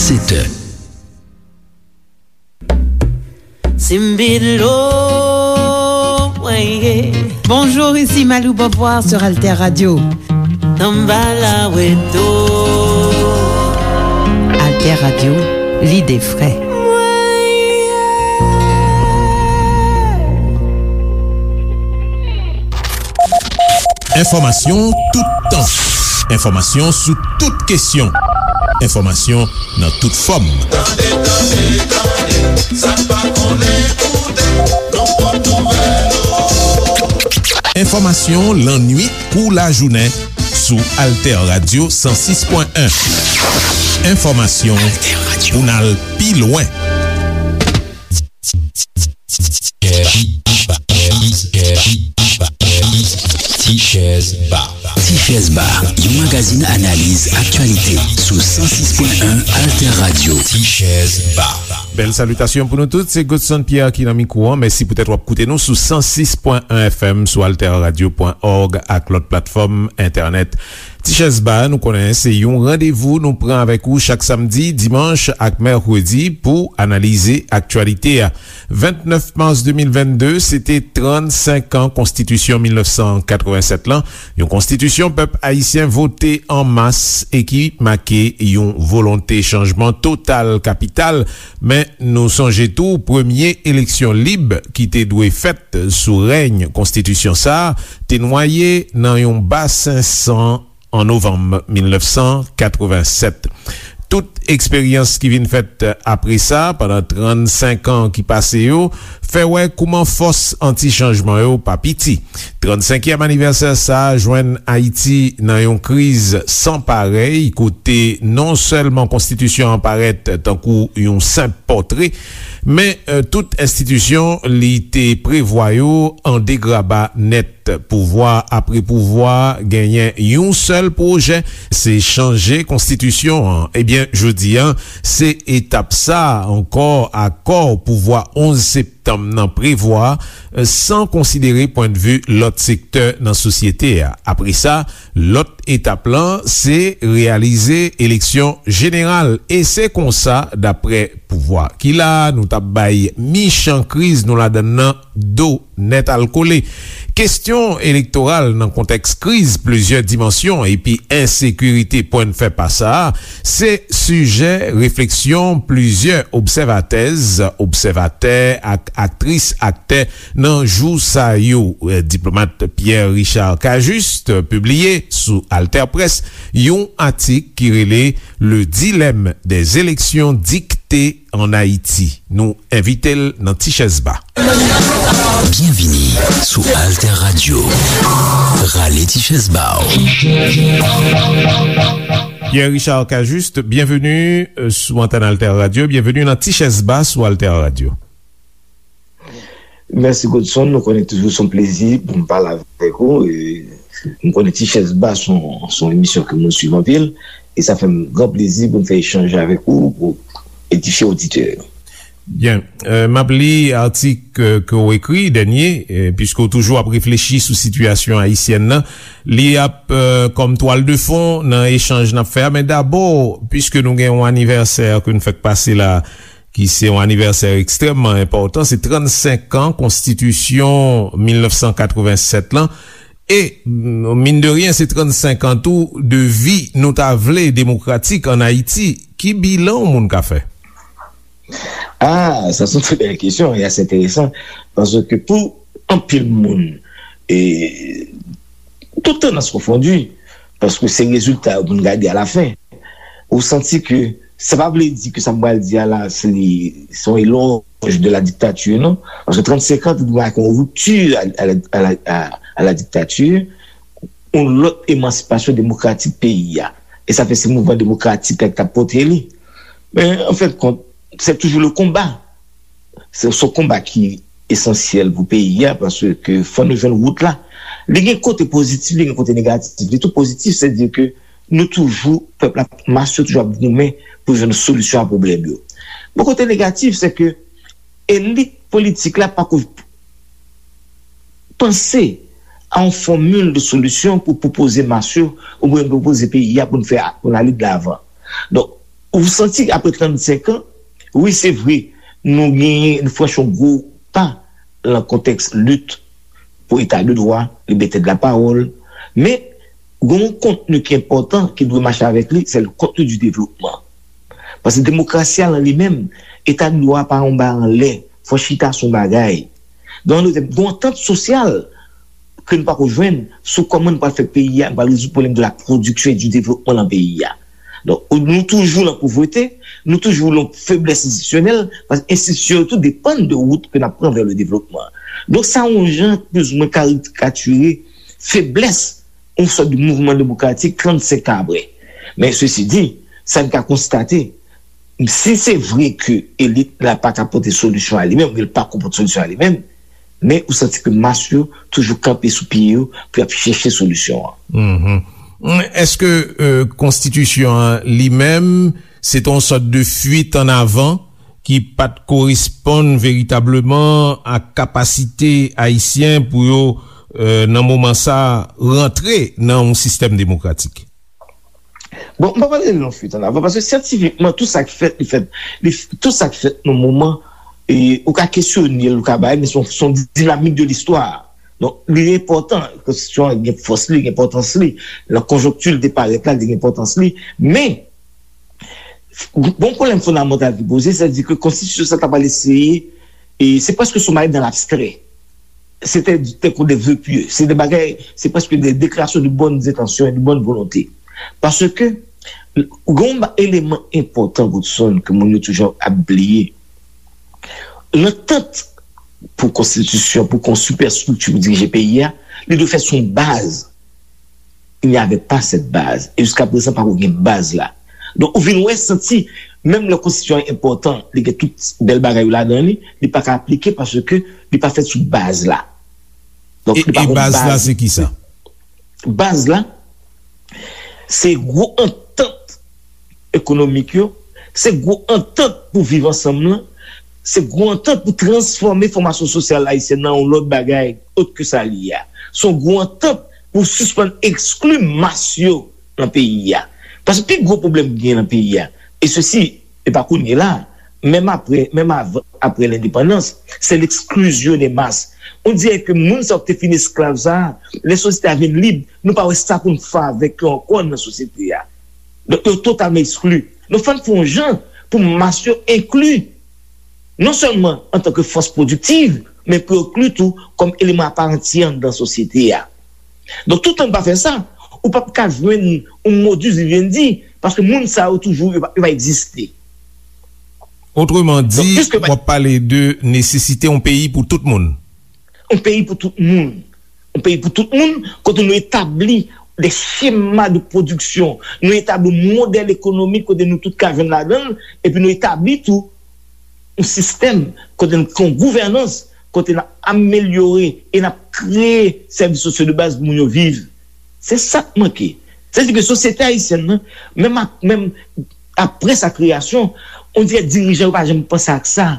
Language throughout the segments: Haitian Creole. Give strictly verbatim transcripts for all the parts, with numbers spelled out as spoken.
Sèt è. Simbilo, mwen ye. Bonjour, ici Malou Beauvoir sur Alter Radio. Tanbala weto. Alter Radio, l'idée frais. Enfòmasyon toutan. Enfòmasyon sou tout kesyon. Enfòmasyon nan tout fòm. Tande, tande, tande, sa n pa konnen koute, nan pwòp nouvèl ou. Enfòmasyon lannuit kou lajounen sou Alter Radio san sis pwen en. Enfòmasyon pou n al pi lwen. Tichèz Ba. Tichèz Ba, yon magazin analiz aktyalite sou san sis pwen en Alter Radio. Tichèz Ba. Bèl salitasyon pou nou tout, se Godson Pierre ki nan mikwo an. Mèsi poutèt w ap koute nou sou san sis pwen en F M, sou alterradio pwen org ak lòt platfòm entènèt. Tichèz Ba, nou konnen se yon randevou nou pran avèk ou chak samdi, dimanch ak mèkredi pou analize aktyalite a. Vennèf mas de mil vennde, se te trannsenk an Konstitisyon mil nèf san katrevennsèt lan, yon konstitisyon pèp ayisyen vote an mas e ki make yon volonte chanjman total kapital. Men, nou sonje tou, premye eleksyon lib ki te dwe fèt sou rèy konstitisyon sa a te nwaye nan yon basen san an novanm mil nèf san katrevennsèt. Tout eksperyans ki vin fèt apre sa, pandan trannsenk an ki pase yo, fè wè kouman fòs anti-chanjman yo pa piti. Trannsenkyèm anivèsè sa a jwenn Ayiti nan yon kriz san parèy, kote non sèlman konstitisyon an parèt tankou yon senp pòtre, men, eh, tout enstitisyon li te prevwa yo an degraba nèt. Pouvwa apre pouvwa genyen yon sèl pwojè, se chanje konstitisyon an. Ebyen, jodi a, se etap sa a ankò akò pouvwa onz septanm nan prevwa, san konsidere pwendvi lòt sektè nan sosyete a. Apre sa, lòt etap lan, se reyalize eleksyon jeneral. E se konsa, daprè pouvwa ki la a, nou t ap bay michan kriz nou ladann nan do nèt al kole. Kesyon elektoral nan kontèks kriz plizyè dimansyon epi ensekirite pwennfè pa sa a, se sijè refleksyon plizyè obsèvatèz, obsèvatè ak aktris, aktè nan jou sa yo. Diplomat Pierre Richard Cajuste pibliye sou AlterPresse yon atik ki rele Le dilemme des élections dictées en Haïti. Nou envite l nan Tichèz Ba. Byenvini sou Alter Radio. Rale Tichèz Ba w. Pierre Richard Cajuste, byenveni, euh, sou antèn Alter Radio. Byenveni nan Tichèz Ba sou Alter Radio. Mèsi Godson, nou konnen toujou se yon plezi pou m pale avèk ou. E m konnen Tichèz Ba se yon, se yon emisyon ke moun swiv anpil. E sa fè m gran plezi pou m fè echanj avèk ou pou edifye oditè yo. Byen. Euh, m ap li atik, euh, ke w ekri, dènye, euh, piske w toujou ap reflechi sou sitiyasyon ayisyèn nan. Li ap, euh, kòm twal de fon nan echanj n ap fè a. Men dabò, piske nou gen yon anivèsè ke n fèk pase la, ki se yon anivèsè ekstrèmman enpòtan, se trannsenk an Konstitisyon mil nèf san katrevennsèt lan. E, mm, mine de rien, se trannsenk an tou de vi nou ta vle demokratik ann Ayiti. Ki bilan yon moun ka fè? Ah, sa se yon trè bèl kesyon e ase enteresan. Paske pou anpil moun, e, tout tandans konfondi, paske se rezilta yo pou n gade alafen. Ou santi ke sa pa vle di ke sa m pral di a la, se li, se yon elòj de la dictature, non. Paske trannsenk an, te dwe make yon ripti a, a, a, a, a la dictature, yon lòt emansipasyon demokratik peyi a. E sa fè se mouvman demokratik la ki t ap pote li. Men, an fen de kont, se toujou le konba. Se, se yon konba ki esansyèl pou peyi a, paske fò nou jwenn wout la. Li gen kote pozitif, li gen kote negatif. Li tou pozitif, se di ke nou toujou, pèp la, mas yo toujou ap goumen pou jwenn solisyon a pwoblèm yo. Bon, kote negatif, se ke elit politik la pako panse a yon fòmil de solisyon pou pwopoze mas yo, oubyen pwopoze peyi a pou n fè, pou n ale de lavan. Donk, Ou santi apre trannsenk an, wi, se vre, nou genyen, nou franchi yon gwo pa nan kontèks lit pou eta de dwa, libète de lapawòl, men gen yon kontni ki enpòtan ki dwe mache avèk li, se le contenu du développement. Paske demokrasi a lan li menm, eta de dwa a pa yon bagay anlè, fò chita sou yon bagay. Donk, nou te gen yon antant sosyal ke nou pako jwenn sou kòman nou pral fè peyi a, nou pral rezoud pwoblèm de la production et du développement lan peyi a. Donk, nou toujou lan povrete, nou toujou lan feblès enstitisyonèl, paske enstitisyon yo tou depann de wout ke n ap pran vè le devlopman. Donk, sa yon jan plizoumwen karikatire feblès yon sòt de mouvman demokratik trannsenk an apre. Men, sesi di, sa n ka konstate, si se vre ke elit la pa ka pote solisyon a li menm, li pa ka pote solisyon a li menm, men ou santi ke mas yo toujou kanpe sou pye yo pou y ap chèche solisyon an. Èske konstitisyon an li menm se te yon sòt de fuit an avan ki pa t koresponn veritableman a kapasite ayisyen pou yo nan moman sa rantre nan yon sistèm demokratik? Bon, m pa pale de yon fuit an avan, paske syantifikman, tout sa ki fèt, li fèt, li, tout sa ki fèt nan moman, e, ou ka kesyone l, ou ka bay, men se yon, se yon dinamik de listwa. Donk, li enpòtan, konstitisyon an gen fòs li, gen enpòtans li, nan konjonkti l te parèt la, li gen enpòtans li, men, bon pwoblèm fondamantal ki poze, sètadi ke konstitisyon sa ta pral eseye, e se prèske sou mayi dan labstrè. Se te tankou de vœux pieux. Se de bagay, se prèske de deklarasyon de bonnes intentions et de bonne volonté. Paske, gen yon eleman enpòtan, Godson, ke moun yo toujou ap bliye. Lantant pou konstitisyon, pou konstwi sipèstrikti pou dirije peyi a, li dwe fèt sou yon baz. Il n'y avait pas cette base. E jiska prezan, pako gen baz la. Donk, ou vin wè, santi, menm lè konstitisyon an enpòtan, li gen tout bèl bagay yo ladan li, li pa ka aplike paske li pa fèt sou baz la. Donk, e, li pa e gen baz la, se ki sa? Baz la, se gwo antant ekonomik yo, se gwo antant pou viv ansanm lan, se gwo antant pou transfòme fòmasyon sosyal ayisyèn nan yon lòt bagay, ot ke sa li ye a. Se yon gwo antant pou sispann ekskli mas yo nan peyi a. Paske pi gwo pwoblèm ki gen nan peyi a, e sesi, e pa kounye la, menm apre, menm avan, apre lendepandans, se l'exclusion des masses. On dirait que moun sa yo ki te fin esklav sa a, lè sosyete a vin lib, nou pa wè sa pou n fè avèk yo ankò nan sosyete a. Donk, yo totalman ekskli. Donk, fò n fè yon jan pou mas yo enkli, non sèlman antanke fòs pwodiktiv, men pou yo enkli tou kòm eleman aparantyè anndan sosyete a. Donk, toutan n pa fè sa, ou p ap ka jwenn yon modus vivendi, paske moun sa yo toujou, yo pa, yo pa egziste. Otreman di, w ap pale de nesesite yon peyi pou tout moun. Yon peyi pou tout moun. Yon peyi pou tout moun, kote nou etabli de chema de pwodiksyon, nou etabli yon modèl ekonomik kote nou tout ka jwenn ladan l, epi nou etabli tou yon sistèm kote n gen yon gouvènans, kote n ap amelyore e n ap kreye sèvis sosyo de baz pou moun yo viv. Se sa k manke. Sètadi ke sosyete ayisyèn nan, menm, menm apre sa kreyasyon, on dirè dirijan yo pa janm panse ak sa.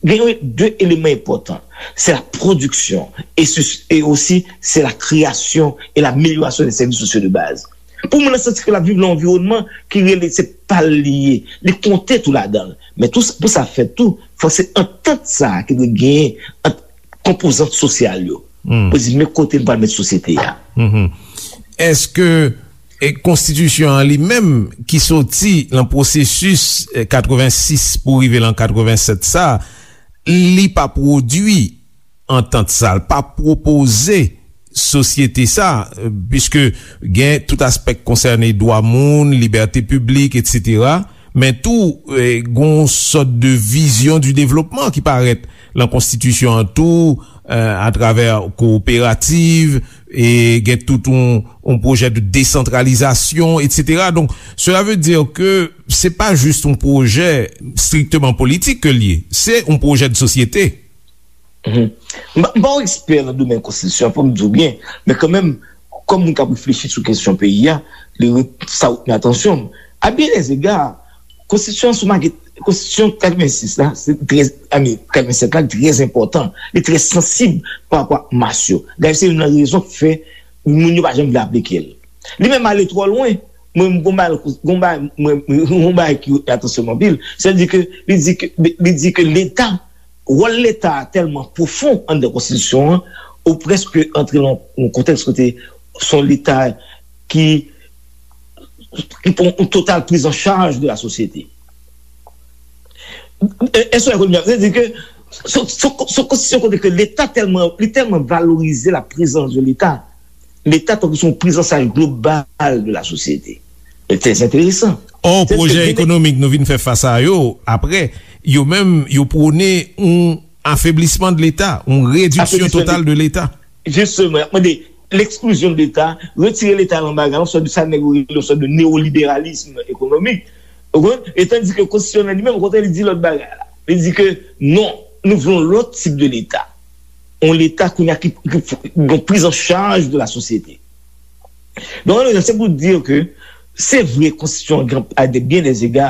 Gen de eleman enpòtan. Se la pwodiksyon e, e osi se la kreyasyon e lamelyorasyon de sèvis sosyo de baz. Pou moun nan santi ke l ap viv nan yon anviwònman ki rele se pa l li ye, li konte tou ladan l. Men tou, pou sa fèt tou, fòk se antant sa a ki dwe genyen ant konpozant sosyal yo. Pou di men kote n pral met sosyete a. Èske e konstitisyon an li menm ki soti nan pwosesis katrevensis pou rive lan katrevenset sa, li pa pwodui antant sa, li pa pwopoze sosyete sa, piske gen tout aspè ki konsène dwa moun, libète piblik, etsetera. Men tou, gen yon sòt de vizyon di devlopman ki parèt lan konstitisyon an tou, atravè kowoperativ, e gen tout yon, yon pwojè de desantralizasyon, etsetera. Donk, sela ve di ke se pa jis yon pwojè strikteman politik ke l ye, se yon pwojè de sosyete. M pa yon ekspè nan domèn konstitisyon an, fò m di w byen, men kanmenm, kòm moun k ap reflechi sou kesyon peyi a, li, sa retni atansyon m. A byen dè zega, konstitisyon an sou makèt, konstitisyon katrevensis la, se trè, I mean, katrevenset la, trè enpòtan. Li trè sansib pa rapò ak mas yo. Dayè, se youn nan rezon k fè moun yo pa janm vle aplike l. Li menm ale twò lwen. Mwen, m gon bagay, gon bagay, mwen, gon bagay ki atansyon m anpil. Sètadi ke li di ke, li di ke Leta, wòl Leta a tèlman pwofon anndan konstitisyon an, ou prèske antre nan yon kontèks kote se yon Leta ki, ki pran yon total prise en charge de la société. Èske w konprann? Sètadi ke se, se, se konstitisyon kote ke Leta tèlman, li tèlman valorize la présence de Leta. Leta tankou se yon prizanchaj global de la société. E trè enteresan. Ò, pwojè ekonomik nou vin fè fas a yo, apre, yo menm, yo pwone yon afeblisman de Leta, yon rediksyon total de Leta. Jisteman, y ap mande l'exclusion de Leta, retire Leta nan bagay la, yon sòt de sa nèg yo rele yon sòt de neoliberalisme économique. Ou konprann? E tandis ke konstitisyon an li menm, okontrè, li di lòt bagay la. Li di ke non, nou vle yon lòt tip de Leta. Yon Leta kounye a ki, ki, ki gen prise en charge de la société. Donk, se pou di ke se vre, konstitisyon an, a de byen dè ega,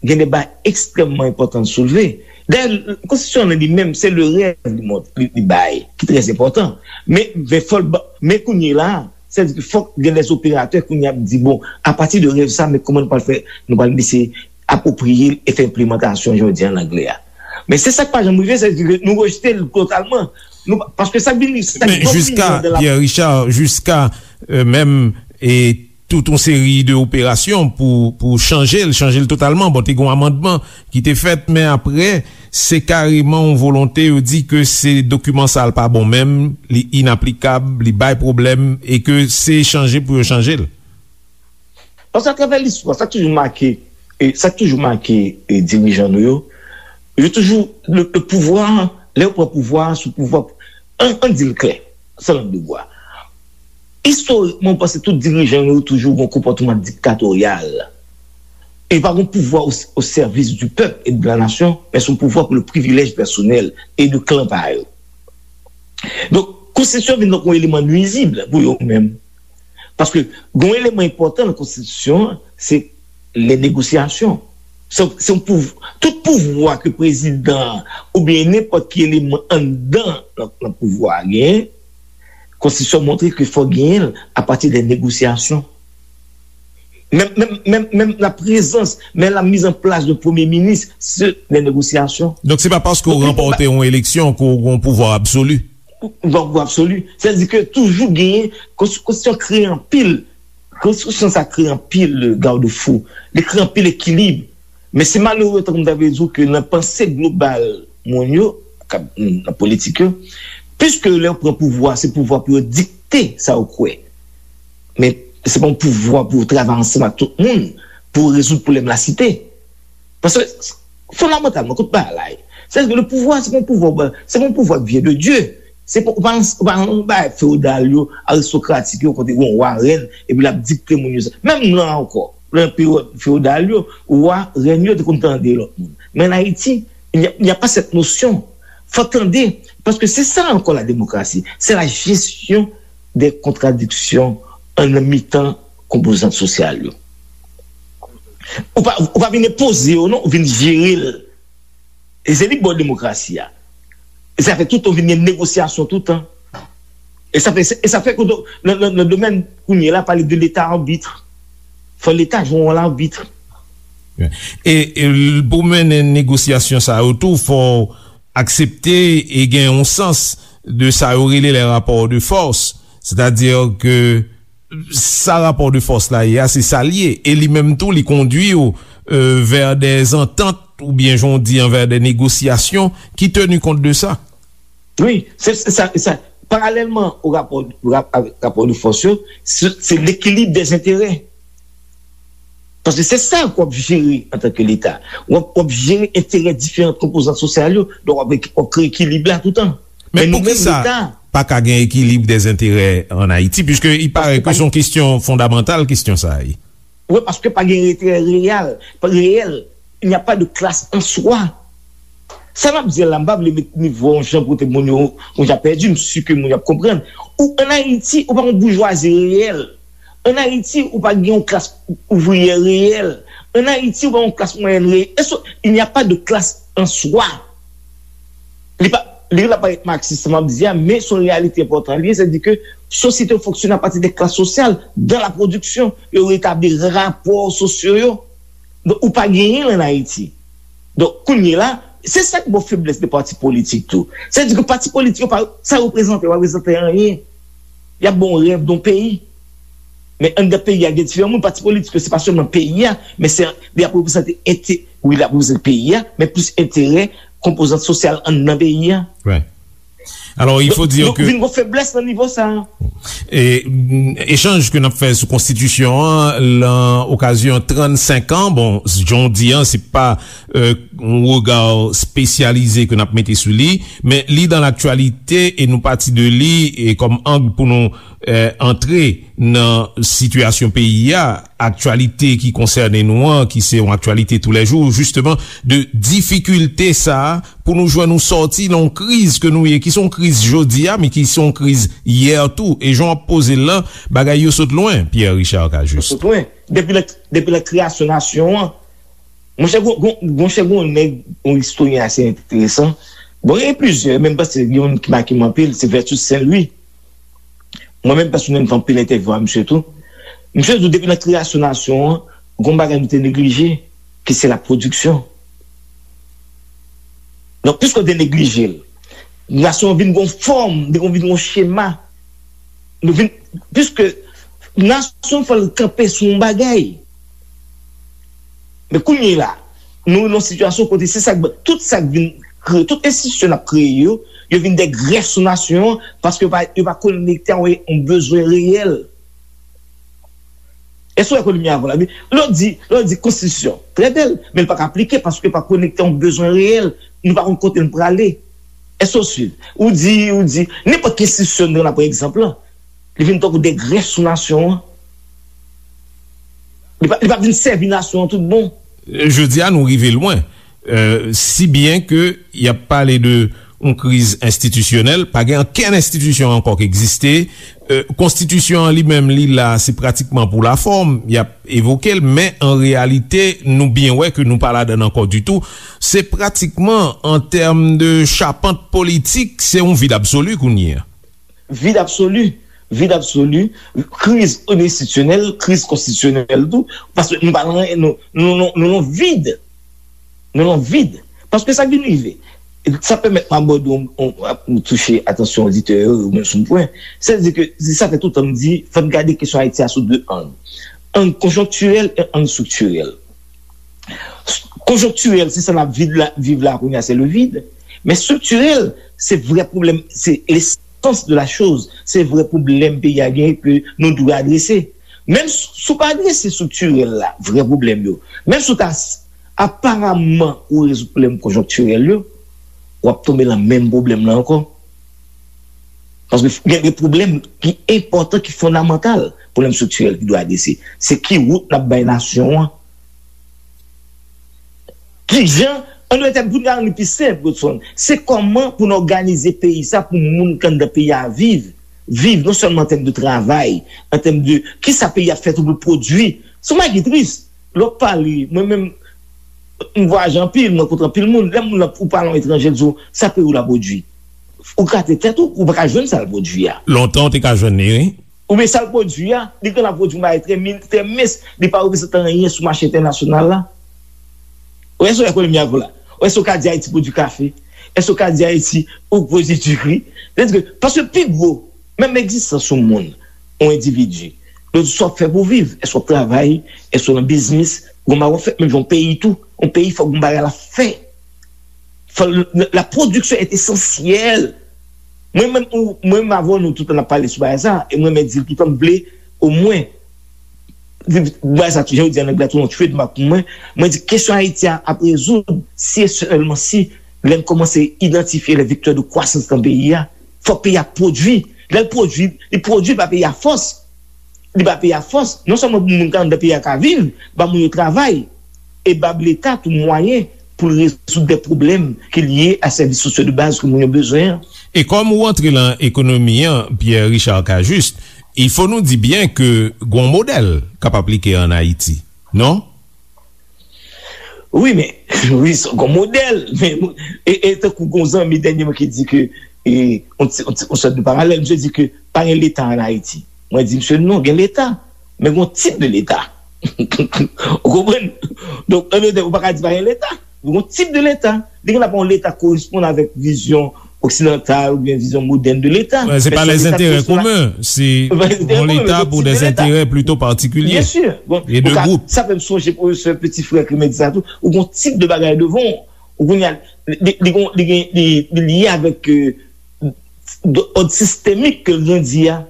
gen de bagay ekstrèmman enpòtan l soulve. Dayè, konstitisyon an li menm, se le rèv li mont-, li, li bay, ki trè enpòtan. Men, men fò l ba-, men kounye la, sètadi ke fòk gen dè operatè kounye a ap di, bon, apati de rèv sa, men kòman nou pral fè, nou pral eseye apwopriye l e fè enplimantasyon jodi an nan anglè a. Men se sa k pa janm rive, sètadi ke nou rejte l totalman. Nou pa, paske sa k vin, sa k vin anndan la. Men jiska, Pierre Richard, jiska, euh, menm, e tout yon seri de operasyon pou, pou chanje l, chanje l totalman. Bon, te gen yon amandman ki te fèt, men apre, se kareman yon volonte, yo di ke se dokiman sa l pa bon menm, li inaplikab, li bay pwoblèm, e ke se chanje pou yo chanje l. Paske atravè listwa, sa k toujou make, e, sa k toujou make, e, dirijan nou yo, yo toujou, le, le pouvwa, lè yo pran pouvwa, sou pouvwa, an, an di l klè, san lang de bwa. Istorikman, ou panse tout dirijan yo toujou gen yon konpòtman diktatoryal. E pa gen pouvwa o, o sèvis du peuple et de la nation, men se yon pouvwa pou le privilèj pèsonèl e de klan pa yo. Donk, konstitisyon vin tankou yon eleman nwizib pou yo menm. Paske gen yon eleman enpòtan nan konstitisyon an, se lè negosyasyon. Se, se yon pouv-, tout pouvwa ke prezidan an oubyen nenpòt ki eleman anndan nan, nan pouvwa a genyen, konstitisyon montre ke fò genyen l apati de negosyasyon. Menm, menm, menm, menm la prezans, menm la mise en place de premye minis, se de negosyasyon. Donk, se pa paske w ranpòte yon eleksyon ke w gen yon pouvwa absoli. Yon pouvwa absoli. Sètadi ke toujou genyen, konsti-, konstitisyon kreye anpil, konstitisyon sa kreye anpil, euh, garde-fou. Li kreye anpil ekilib. Men se malere, tankou m ta vle di w, ke nan panse global moun yo, k ap, nan politik yo, piske lè yo pran pouvwa, se pouvwa pou yo dikte sa yo kwè. Men se pa yon pouvwa pou yo travay ansanm ak tout moun pou rezoud pwoblèm lasite. Paske, fondamantalman, kote bagay la ye? Sètadi ke le pouvwa, se pa yon pouvwa, se pa yon pouvwa qui vient de Dieu. Se pa, ou pa, ou pa yon bagay fewodal yo, aristokratik yo, kote yon wa, rèn, epi l ap dikte moun yo sa. Menm nan ankò, nan peryòd fewodal yo, wa, rèn yo te konn tande lòt moun. Men an Ayiti, il n'y a, il n'y a pas cette notion. Fò tande, paske se sa ankò la démocratie. C'est la gestion des contradictions an nan mitan konpozant sosyal yo. Ou pa, ou pa vin enpoze yo, non, ou vin jere l. E se li k ba w demokrasi a. E sa fè toutan w vin gen negosyasyon toutan. E sa fè, e sa fè ke nan, nan, nan domèn kounye a la, pale de leta arbit. Fò leta jwe yon wòl arbit. E, e l-, pou mennen negosyasyon sa yo tou, fò w aksepte e gen yon sans de sa yo rele les rapports de force. Sètadi ke sa rapò de fòs la ye a, se sa l ye. E li menm tou, li kondui w, euh, vers des ententes, oubyen, jan w di an, vers des négociations qui tenir compte de ça. Wi, se, se sa, se sa. Paralèlman o rapò, rap-, avèk rapò de fòs yo, se, se l'équilibre des intérêts. Paske se sa ke w ap jere antanke Leta. W ap, w ap jere enterè diferan konpozan sosyal yo, donk w ap, w ap kreye ekilib la toutan. Men poukisa pa ka gen ekilib dèzenterè ann Ayiti, puiske il paraît que se yon kesyon fondamantal, kesyon sa a ye. Wi, paske pa gen enterè reyèl, pa reyèl. Il n'y a pas de classe en soi. Sa m ap di a la, m pa vle met nivo a yon jan pou te moun yo, moun yo ap pèdi, m si ke moun yo ap konprann. Ou, ann Ayiti, ou pa yon boujwazi reyèl. Ann Ayiti, ou pa gen yon klas ouvriyè reyèl. Ann Ayiti, ou pa yon klas mwayèn reyèl. Èske, il n'y a pas de classe en soi. Li pa, li la parèt maksis, sa m ap di a, men se yon reyalite enpòtan li ye, sètadi ke sosyete yo fonksyone apati de klas sosyal, dans la production, yo retabli rapò sosyo yo. Donk, ou pa genyen l ann Ayiti. Donk, kounye la, se sa k ba w feblès de pati politik tou. Sa vle di ke pati politik yo pa, sa yo reprezante, yo pa reprezante anyen. Y ap ba w rèv de yon peyi. Men anndan peyi a, gen diferan moun. Pati politik yo, se pa sèlman peyi a, men se, li ap reprezante ente-, wi, li ap reprezante peyi a, men plis enterè konpozant sosyal anndan peyi a. Alò, il faut dire que vin gon feblès nan nivo sa a. E, mm, echanj ke n ap fè sou konstitisyon an, lan okazyon trannsenk an, bon, jan w di an, se pa, euh, yon rega espesyalize ke n ap mete sou li, men li dans l'actualité e nou pati de li e kòm ang pou nou, euh, antre nan sitiyasyon peyi a, aktyalite ki konsène nou an, ki se yon aktyalite toulèjou, jisteman, de difikilte sa a, pou nou jwenn yon sòti nan yon kriz ke nou ye, ki se yon kriz jodi a, men ki se yon kriz yè tou. E jan w ap poze l lan, bagay yo sot lwen, Pierre Richard Cajuste. Sot lwen. Depi lè, depi lè kreyasyon nasyon an, monchè, gon, gon, monchè, gon nèg, yon istoryen ase enteresan. Bon, gen plizyè, men m panse gen youn ki make m anpil, se Vertus Saint Louis. Mwen menm pèsonèl, m fè anpil entèvyou a misye tou. Misye di w depi nan kreyasyon nasyon an, gon bagay nou te neglije, ki se la pwodiksyon. Donk, piske w te neglije l, nasyon an vin gon fòm, li vin gon chema. Nou vin, piske nasyon fò l kanpe sou yon bagay. Men kounye la, nou nan yon sitiyasyon kote se sa k, tout sa k vin kreye, tout enstitisyon n ap kreye yo, yo vin de grèf sou nasyon an, paske yo pa, yo pa konekte ak yon bezwen reyèl. Èske w wè kote m ye avè w la? Lè w di, lè w di konstitisyon, trè bèl, men l pa ka aplike paske l pa konekte ak yon bezwen reyèl. Nou pa konn kote n prale. Èske w swiv? Ou di, ou di, nenpòt ki enstitisyon nou pran, pa egzanp lan, li vin tankou de grèf sou nasyon an. Li pa, li pa vin sèvi nasyon an tout bon. Jodi a, nou rive lwen. Euh, si byen ke y ap pale de yon kriz enstitisyonèl, pa gen okenn enstitisyon ankò k egziste. Euh, konstitisyon an li menm, li la, se pratikman pou lafòm, y ap evoke l, men an reyalite, nou byen wè ke nou pa ladan l ankò ditou. Se pratikman, an tèm de chapant politik, se yon vid absoli kounye a. Vid absoli, vid absoli, kriz enstitisyonèl, kriz konstitisyonèl tou, paske nou pa nan, nou, nou, nou, nou nan vid. Nou nan vid. Paske sa k vin rive, sa pèmèt m abòde yon, yon, yon touche atansyon oditè yo, yo menm sou yon pwen. Sètadi ke, se sa fè toutan m di, fò n gade kesyon Ayiti a sou de ang. Ang konjonktirèl e ang estriktirèl. Konjonktirèl, se sa n ap viv la, viv la kounye a, se le vide. Men estriktirèl, se vrè pwoblèm, se lesans de la choz, se vrè pwoblèm peyi a genyen ke nou dwe adrese. Menm si w pa adrese estriktirèl la, vrè pwoblèm yo, menm si w ta s-, aparaman ou rezoud pwoblèm konjonktirèl yo, w ap tonbe nan menm pwoblèm nan ankò. Paske gen de pwoblèm ki enpòtan, ki fondamantal, pwoblèm estriktirèl ki dwe adrese. Se ki wout n ap bay nasyon an? Kijan, an dwe tèm, pou n ka rann li pi senp, Godson, se kòman pou n òganize peyi sa pou moun k anndan peyi a viv, viv non sèlman an tèm de travay, an tèm de kisa peyi a fè tou pou l pwodui. Se yon bagay ki tris. Lè w ap pale, mwen menm, m vwayaje anpil, m rankontre anpil moun. Lè moun nan, ou pale yon etranjè, l di w, sa peyi w la pwodui. Ou gate tèt ou, ou pa ka jwenn sa l pwodui a. Lontan, w te ka jwenn li, wi. Oubyen sa l pwodui a, li genlè pwodui yon bagay trè min-, trè mens, li pa reprezante anyen sou mache entènasyonal la. Ou èske w wè kote m ye avè w la? Ou èske w ka di Ayiti pwodui kafe? Èske w ka di Ayiti ou pwodui diri? Sètadi ke, paske pi gwo, menm egzistans yon moun, yon endividi, yo di sa w ap fè pou w viv. Èske w ap travay? Èske w nan biznis? Gon bagay w ap fè? Menm jan yon peyi tou, yon peyi fòk gon bagay l ap fè. Fò l, la, la production est essentielle. Mwen menm, ou, mwen menm avè w, nou toutan n ap pale sou bagay sa, e mwen menm di l toutan m vle, omwen, di, bagay sa, jan yo di an anglè, tou yon trademark pou mwen, mwen di kesyon Ayiti a ap rezoud si e sèlman si lè n kòmanse idantifye les vecteurs de croissance nan peyi a. Fòk peyi a pwodui. Lè l pwodui, li pwodui pa peyi a fòs. Li ba peyi a fòs, non sèlman pou moun k anndan peyi a ka viv, ba moun yo travay, e ba Leta tou mwayen pou l rezoud de pwoblèm ki lye a sèvis sosyo de baz ke moun yo bezwen an. E kòm ou antre lan ekonomi an, Pierre Richard Cajuste, il faut nou di byen ke gon modèl k ap aplike an Ayiti, non? Wi, men, wi, se gon modèl, men, e, e tankou gon zanmi dènyèman ki di ke e, yon ti, yon ti, yon sòt de paralèl. Misye di ke pa gen Leta ann Ayiti. Mwen di misye, non, gen Leta, men gen yon tip de Leta. Ou konprann? Donk, an dòt tèm, ou pa ka di pa gen Leta. Gen yon tip de Leta. Li gen dwa pa yon Leta koresponn avèk vizyon oksidantal oubyen vizyon modèn de Leta. Se pa lèzentèrè komen, se yon Leta pou dèzentèrè plito patikilye e de gwoup. Sa fè m sonje pwofesè Petit Frère ki te di sa tou. Ou gen yon tip de bagay devan w. Ou konnen, li, li, li, li, li lye avèk òd sistemik ke l gen di a.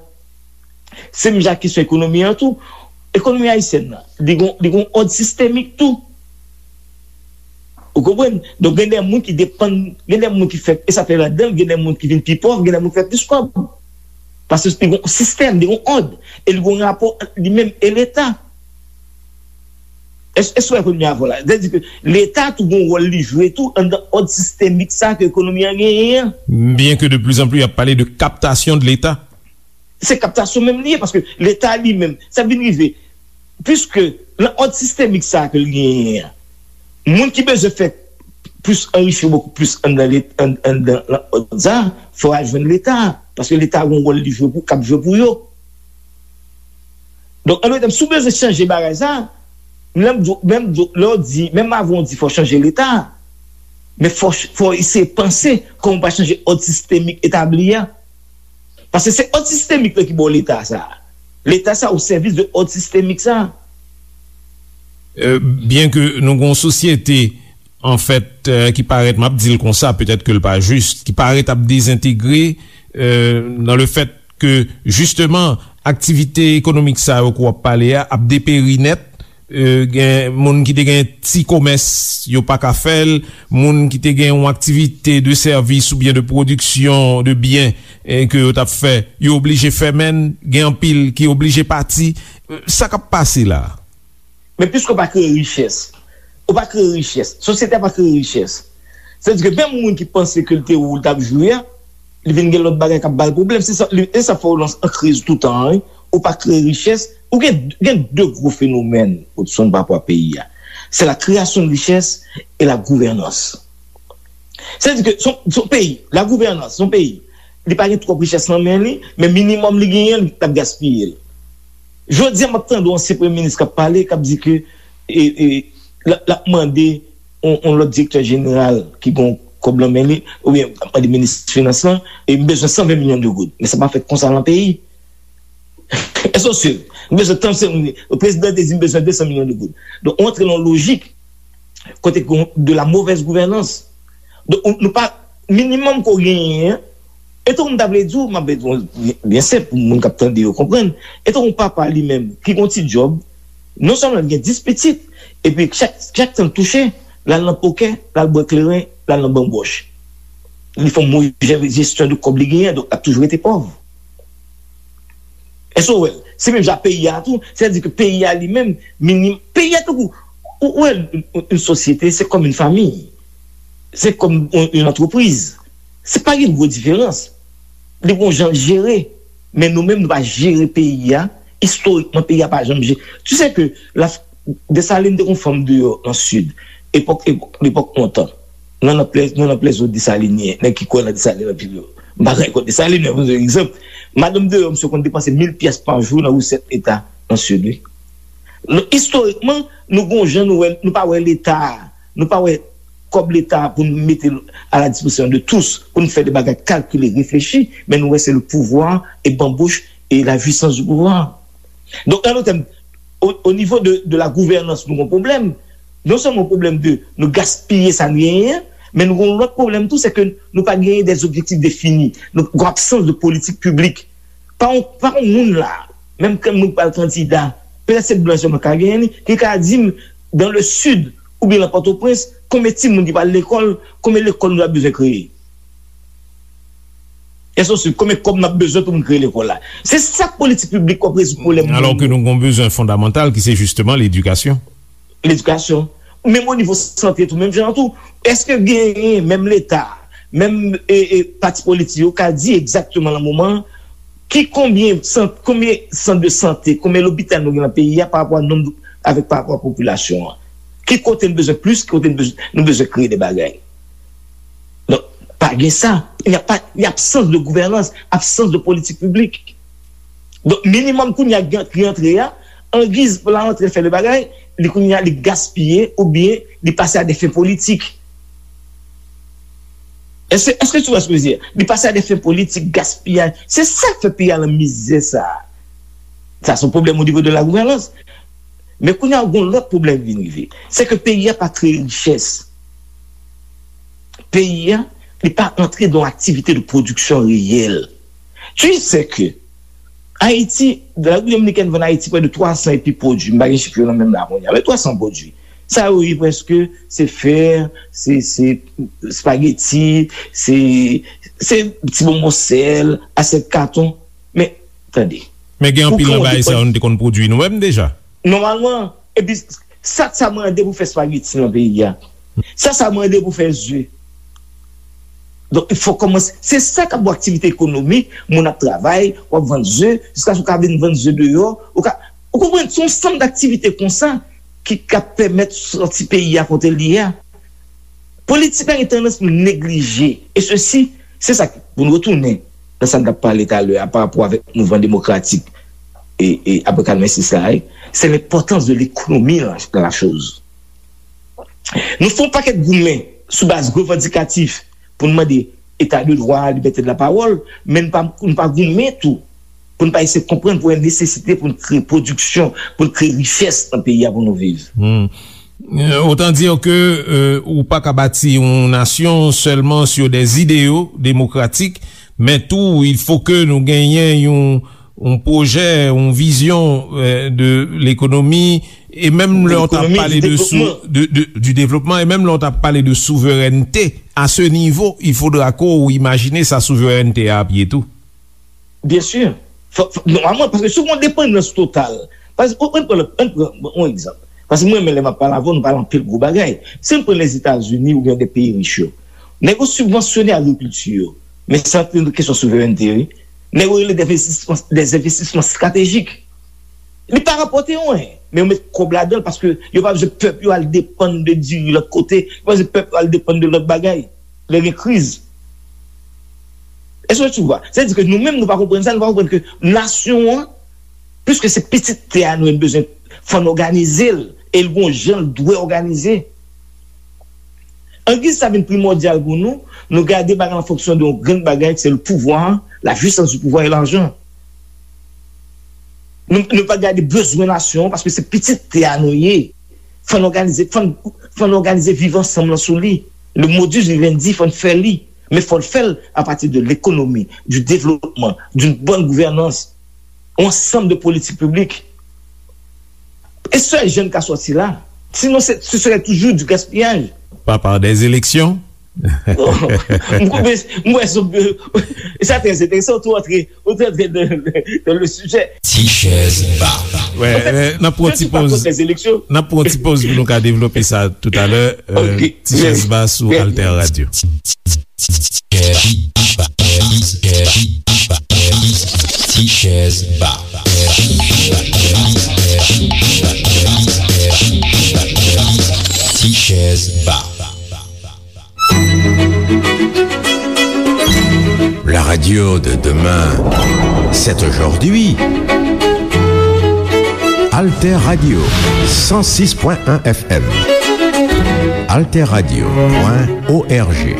Se menm jan ak kesyon ekonomi an tou. Ekonomi ayisyèn nan, li gen, li gen òd sistemik tou. Ou konprann? Donk, gen de moun ki depann, gen de moun ki fè, e sa fè ladan, gen de moun ki vin pi pòv, gen de moun ki fè plis kòb. Paske li gen yon sistèm, li gen yon òd, e li gen yon rapò ant li menm e Leta. Èske w wè ekonomi a vò la? Sètadi ke Leta tou gen yon wòl li jwe tou anndan òd sistemik sa ke ekonomi an genyen an. Byen ke de plizanpli y ap pale de kaptasyon de Leta. Se kaptasyon menm li ye, paske Leta li menm, sa vin rive, piske nan òd sistemik sa ke l genyen an, moun ki bezwen fè plis anrichi yo bokou plis anndan anndan òd sa, fò y al jwenn Leta, paske Leta gen yon wòl li jwe pou, k ap jwe pou yo. Donk, an dòt tèm, si w bezwen chanje bagay sa, menm lè w di, menm lè w di, menm avan w di fò chanje Leta, men fò, fò eseye panse kòman w pa chanje òd sistemik etabli a. Paske se òd sistemik la ki ba w Leta sa. Leta sa o sèvis de òd sistemik sa. Byen ke nou gen yon sosyete, anfèt, ki parèt, m ap di l konsa, petèt ke l pa jis, ki parèt ap dezentegre nan le fèt ke, jisteman, aktivite ekonomik sa yo ke w ap pale a ap deperi nèt. Gen moun ki te gen ti komès, yo pa ka fè l. Moun ki te gen yon aktivite de sèvis oubyen de pwodiksyon de byen ke yo t ap fè, yo oblije fèmen l. Gen anpil ki oblije pati. Sa k ap pase la a? Men piske w pa kreye richès, ou pa kreye richès, sosyete a pa kreye richès. Sètadi ke menm moun ki panse ke l te ou l t ap jwe a, li vin gen lòt bagay k ap ba l pwoblèm. Se sa, e sa fè w nan kriz toutan an, wi. Ou pa kreye richès, ou gen, gen de gwo fenomèn, Hudson, pa rapò a peyi a. C'est la création de richesse et la gouvernance. Sètadi ke se yon, se yon peyi, la gouvènans, se yon peyi, li pa gen twòp richès nan men li, men minimòm li genyen, l ap gaspiye l. Jodi a, m ap tande yon ansyen premye minis k ap pale, k ap di ke e, e, l ap, l ap mande yon, yon lòt direktè jeneral ki gen kòb nan men li, oubyen l ap mande minis finans lan, e m bezwen san ven milyon de goud. Men sa pa fèt konsa nan peyi. Èske w swiv? M bezwen trannsenk milyon. Prezidan te di m bezwen de san milyon de goud. Donk, ou antre nan yon lojik kote ke de la mauvaise gouvènans. Donk, nou pa, minimòm ke w genyen an, e tankou m ta vle di w, m ap di w, byen senp, pou moun k ap tande yo konprann, e tankou yon papa li menm, ki gen yon ti djòb, non sèlman l gen dis pitit, epi chak, chak tan l touche, l al nan pokè, l al bwè kleren, l al nan banbòch. Li fè yon move jesyon de kòb li genyen, donk l ap toujou rete pòv. Èske w wè l? Se menm jan peyi a tou. Sètadi ke peyi a li menm, minim, peyi a tankou, ou wè, yon, yon sosyete, se kòm yon fanmi. Se kòm yon, yon antrepriz. Se pa gen gwo diferans. Li gon jan l jere. Men nou menm, nou pa jere peyi a. Istorikman, peyi a pa janm jere. Tu sais que la, Desalin te gon fanm deyò nan Sid. Epòk, epòk, lepòk lontan. Nan, nan plè, nan, nan plèzo Desalin ye, nèg ki kwè nan Desalin anpil yo. M pa gen kont Desalin, men pou egzanp, madanm deyò, misye konn depanse mil pyès pa jou nan resèt Leta nan Sid, wi. Donk, istorikman, nou gon jan nou wè, nou pa wè Leta a, nou pa wè kòb Leta a pou n mete l à la disposition de tous, pou n fè de bagay kalkile, reflechi, men nou wè se le pouvoir et bamboche et la jouissance du pouvoir. Donk, an dòt tèm, o, o nivo de, de la gouvènans, nou gon pwoblèm. Non sèlman yon pwoblèm de nou gaspiye sa n genyen an, men nou gon lòt pwoblèm tou, se ke nou pa genyen des objectifs définis. Nou gon absans de politik piblik. Pa yon, pa yon moun la, menm ke moun k pral kandida, petèt se blan sèlman k ka genyen li, ki ka di m, dans le sud, oubyen nan Pòtoprens, konbyen timoun ki pral lekòl, konbyen lekòl nou ta bezwen kreye. Èske w swiv? Konbyen kòb n ap bezwen pou n kreye lekòl la? Se sa k politik piblik k ap rezoud pwoblèm moun yo. Alò ke nou gen yon bezwen fondamantal ki se jisteman ledikasyon. Ledikasyon. Menm o nivo sante tou, menm jan an tou. Èske genyen menm Leta, menm e, e, pati politik yo ka di egzakteman nan moman an ki konbyen sant, konbyen sant de sante, konbyen lopital nou gen nan peyi a pa rapò a nonb, avèk pa rapò a popilasyon an? Ki kote n bezwen plis, ki kote n bezwen, nou bezwen kreye de bagay? Donk, pa gen sa. Il n'y a pas, il y a absence de gouvernance, absence de politique publique. Donk, minimòm kounye a ki rantre a, angiz pou l rantre fè de bagay, li kounye a li gaspiye oubyen li pase a de fen politik. Èske, èske tu vois ce que je veux dire? Li pase a de fen politik, gaspiyaj. Se sa k fè peyi a nan mizè sa. Sa se yon pwoblèm o nivo de la gouvènans. Men kounye a, gen yon lòt pwoblèm ki vin rive. Se ke peyi a pa kreye richès. Peyi a, li pa antre dan aktivite de pwodiksyon reyèl. Tu sais que Ayiti, Repiblik Dominikèn vann Ayiti prè de twa san epi pwodui. M pa gen chif yo nan men m la kounye a, men twa san pwodui. Sa yo ye prèske, se fè, se, se espageti, se, se ti bonbon sèl, asyèt katon. Men, tande. Men gen anpil nan bagay sa yo nou te konn pwodui nou menm deja. Nòmalman, epi sa, sa mande pou fè espageti nan peyi a. Sa, sa mande pou fè ze. Donk, il faut kòmanse. Se sa k ap bon aktivite ekonomik, moun ap travay, w ap vann ze, jiskaske w ka vin vann ze deyò, ou ka, ou konprann, se yon sanm daktivite konsa ki ka pèmèt sòti peyi a kote l ye a. Politik la gen tandans pou neglije. E sesi, se sa k, pou n retounen nan sa n t ap pale talè a pa rapò avèk mouvman demokratik e, e apre katrevensis la, se lenpòtans de lekonomi nan la choz. Nou fè yon pakèt goumen sou baz revandikatif pou n mande eta de dwa, libète de la pawòl, men n pa, n pa goumen tou pou n pa eseye konprann pou gen nesesite pou n kreye pwodiksyon, pou n kreye richès nan peyi a pou nou viv. Hmm. Euh, autant dire que, euh, ou pa ka bati yon nasyon sèlman sur des idéaux démocratiques, men tou, il faut que nou genyen yon yon pwojè, yon vizyon, euh, de lekonomi, e menm lè w t ap pale de sou, de, de, du développement, e menm lè w t ap pale de souverènte, à ce niveau, il faudra que w imajine sa souverènte a ap ye tou. Byen si. Fò, fò, nòmalman, paske si w gen yon depandans total, paske, ann pran, ann pran yon egzanp. Paske mwen menm, lè m ap pale avè w, nou pale anpil gwo bagay. Si n pran Lèzetazini oubyen de peyi rich yo, nèg yo sibvansyone agrikilti yo, men sa se yon kesyon souverènte, wi. Nèg yo rele des investissements, des investissements stratégiques. Li pa rapòte anyen, men yo met kòb ladan l paske yo pa bezwen pèp yo al depann de diri lòt kote, yo pa bezwen pèp yo al depann de lòt bagay lè gen kriz. Èske tu vois? Sètadi ke nou menm, nou pa konprann sa, nou pa konprann ke nasyon an, piske se pitit tè a nou, nou bezwen, fò n òganize l, e l gon jan l dwe òganize. Angiz sa vin primòdyal pou nou, nou gade bagay an fonksyon de yon grenn bagay, se le pouvoir, la puissance du pouvoir et l'argent. Nou, nou pa gade bezwen nasyon an, paske se pitit tè a nou ye. Fò n òganize, fò n, fò n òganize viv ansanm lan sou li. Le modus vivendi, fò n fè li. Men fò n fè l apati de lekonomi, du développement, d'une bonne gouvernance, yon ansanm de politik piblik. E sèl jan n ka sòti la. Sinon, se, ce serait toujours du gaspillage. Pas par des élections? M koupe, m wè sou, sa trè enteresan, ou tou antre, ou tou antre dans, dans le sujet. Ti chèz ba. Wè, euh, n ap pran ti pòz. N ap pran ti pòz pou nou ka devlope sa toutalè. Euh, Ti chèz ba sou Alter Radio. Ti chèz ba. Ti chèz ba. La radio de demain, c'est aujourd'hui. Alter Radio, cent six point un F M. Alter Radio point O R G.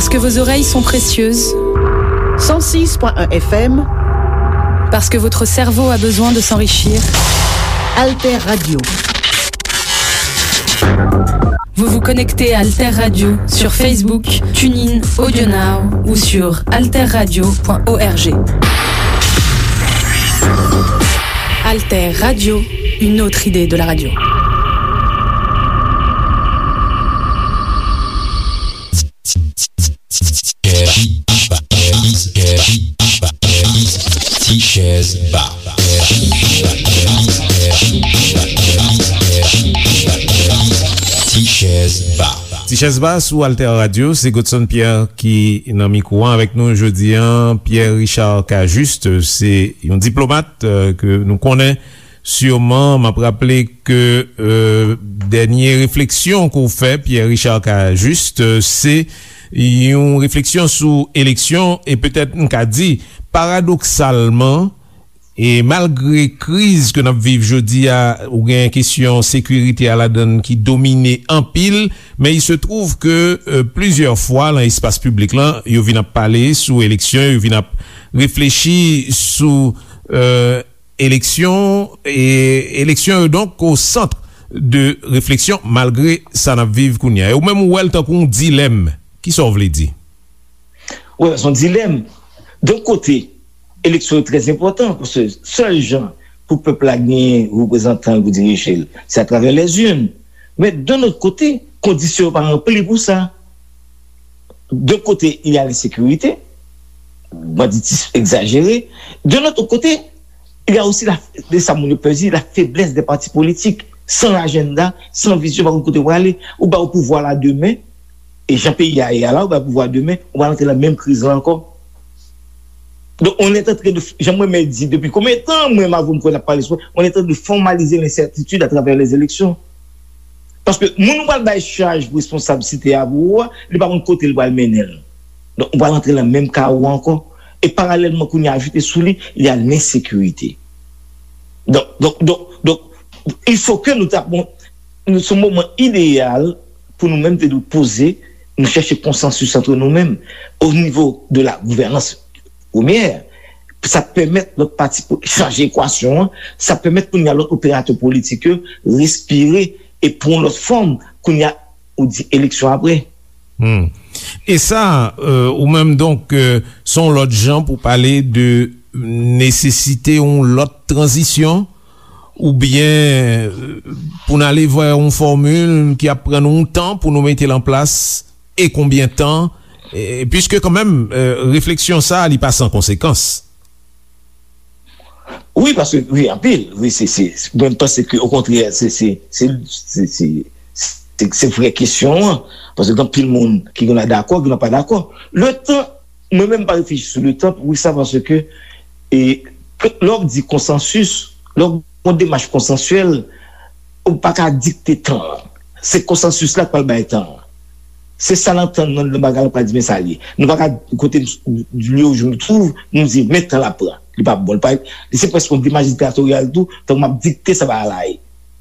Parce que vos oreilles sont précieuses. Cent six point un F M. Parce que votre cerveau a besoin de s'enrichir. Alter Radio. Vous vous connectez à Alter Radio sur Facebook, TuneIn, AudioNow ou sur alterradio point org. Alter Radio, une autre idée de la radio. Tichèz Ba. Tichèz Ba. Tichèz Ba sou Alter Radio, se Godson Pierre ki nan mikwo a avèk nou jodi a. Pierre Richard Cajuste, se yon diplomat, euh, ke nou konnen. Siman, m ap raple ke, euh, dènye refleksyon ke w fè, Pierre Richard Cajuste, euh, se yon refleksyon sou eleksyon, e petèt m ka di, paradoksalman, e malgre kriz ke n ap viv jodi a, ou gen kesyon sekirite a ladann ki domine anpil, men il se trouve que, euh, plizyè fwa nan espas piblik lan, yo vin ap pale sou eleksyon, yo vin ap reflechi sou, euh, eleksyon, e eleksyon yo donk o sant de refleksyon malgre sa n ap viv kounye a. E ou menm ou wè l tankou yon dilèm. Kisa w vle di? Wi, se yon dilèm. Yon kote, eleksyon yo trè enpòtan, paske sèl jan pou pèp la genyen reprezantan l pou dirije l, se atravè lèzin. Men, yon lòt kote, kondisyon yo pa ranpli pou sa. D'un côté, il y a l'insécurité, banditisme exagéré. D'un autre côté, il y a aussi la, de sa moun yo pè di, la faiblesse des partis politiques. Sans agenda, sans vision, pa konn kote w prale. Ou ba yo pouvwa la demen, e jan peyi a ye a la, ou ba yo pouvwa demen, ou pral antre nan menm kriz la ankò. Donc, on est en train de, jan mwen menm di, depuis combien de temps, mwen, m avè w, m kwè n ap pale sou, on est en train de formaliser l'incertitude à travers les élections. Paske moun ou pral bay chaj pou responsab site a pou ou a, li pa konn kote li pral mennen l. Donk, ou pral antre nan menm kawo a ankò. E paralèlman, kounye a ajoute sou li, il y a l'insécurité. Donk, donk, donk, donk, il faut que nou ta, bon, nou, se yon moman ideyal pou nou menm te dwe poze, nou chèche konsansis antre nou menm, o nivo de la gouvènans premyè. Sa pèmèt lòt pati pou chanje ekwasyon an, sa pèmèt kounye a lòt operatè politik yo respire e pran yon lòt fòm, kounye a ou di eleksyon apre. Hmm. E sa, euh, ou menm donk, euh, se yon lòt jan pou pale de nesesite yon lòt tranzisyon, oubyen, euh, pou n ale vè yon fòmil ki ap pran nou yon tan pou nou mete l an plas, e konbyen tan, e, piske kanmenm, euh, refleksyon sa a, li pa san konsekans. Wi, paske, wi, anpil. Wi, se, se, mwen, m panse ke, okontrè, se, se, se, se, se, se, se vrè kesyon an. Paske gen anpil moun ki gen dakò, ki pa dakò. Letan, mwen menm, m pa reflechi sou letan, poukisa? Paske, e, lè w di konsansis, lè w gen yon demach konsansyèl, ou pa ka dikte tan an. Se konsansis la k pral bay tan an. Se sa n antann nan, nan bagay la, pa di men sa l ye. Nou pa ka kote m, lieu où je me trouve, nou di men tan l ap pran. Li pa bon. Li pa, li se prèske yon demach diktatoryal tou, tankou m ap dikte sa bagay la ye.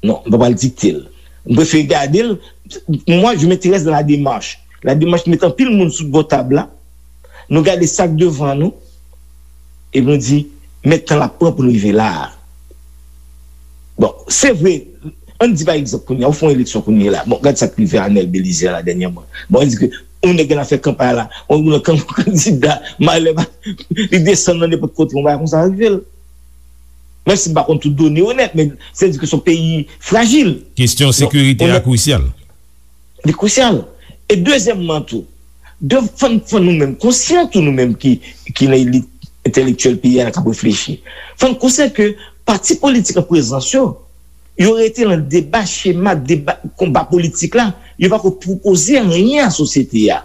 Non, m pa pral dikte l. M prefere gade l. Moi, je m'intéresse dans la démarche. La démarche, nou met anpil moun sou bò tab la. Nou gade sa k devan nou. Epi nou di, men tan l ap pran pou nou rive la a. Bon, se vre, ann di pa egzanp kounye a, ou fè yon eleksyon kounye a la. Bon, gad sa k rive Arnel Belizaire la dènyèman. Bon, ann di ke yon nèg gen afè kanpay la, yon, yon kan-, kandida, malè, li desann nan nenpòt kote, yon bagay konsa rive l. Menm si m pa konn tout done yo nèt, men se di ke se yon peyi frajil. Kesyon sekirite a krisyal. Li krisyal. E dezyèmman tou, de, fò n, fò nou menm konsyan tou, nou menm ki, ki nan elit entèlektyèl peyi a k ap reflechi. Fò n konsyan ke pati politik an prezans yo, yo rete nan deba, chema, deba, konba politik la, yo pako pwopoze anyen a sosyete a.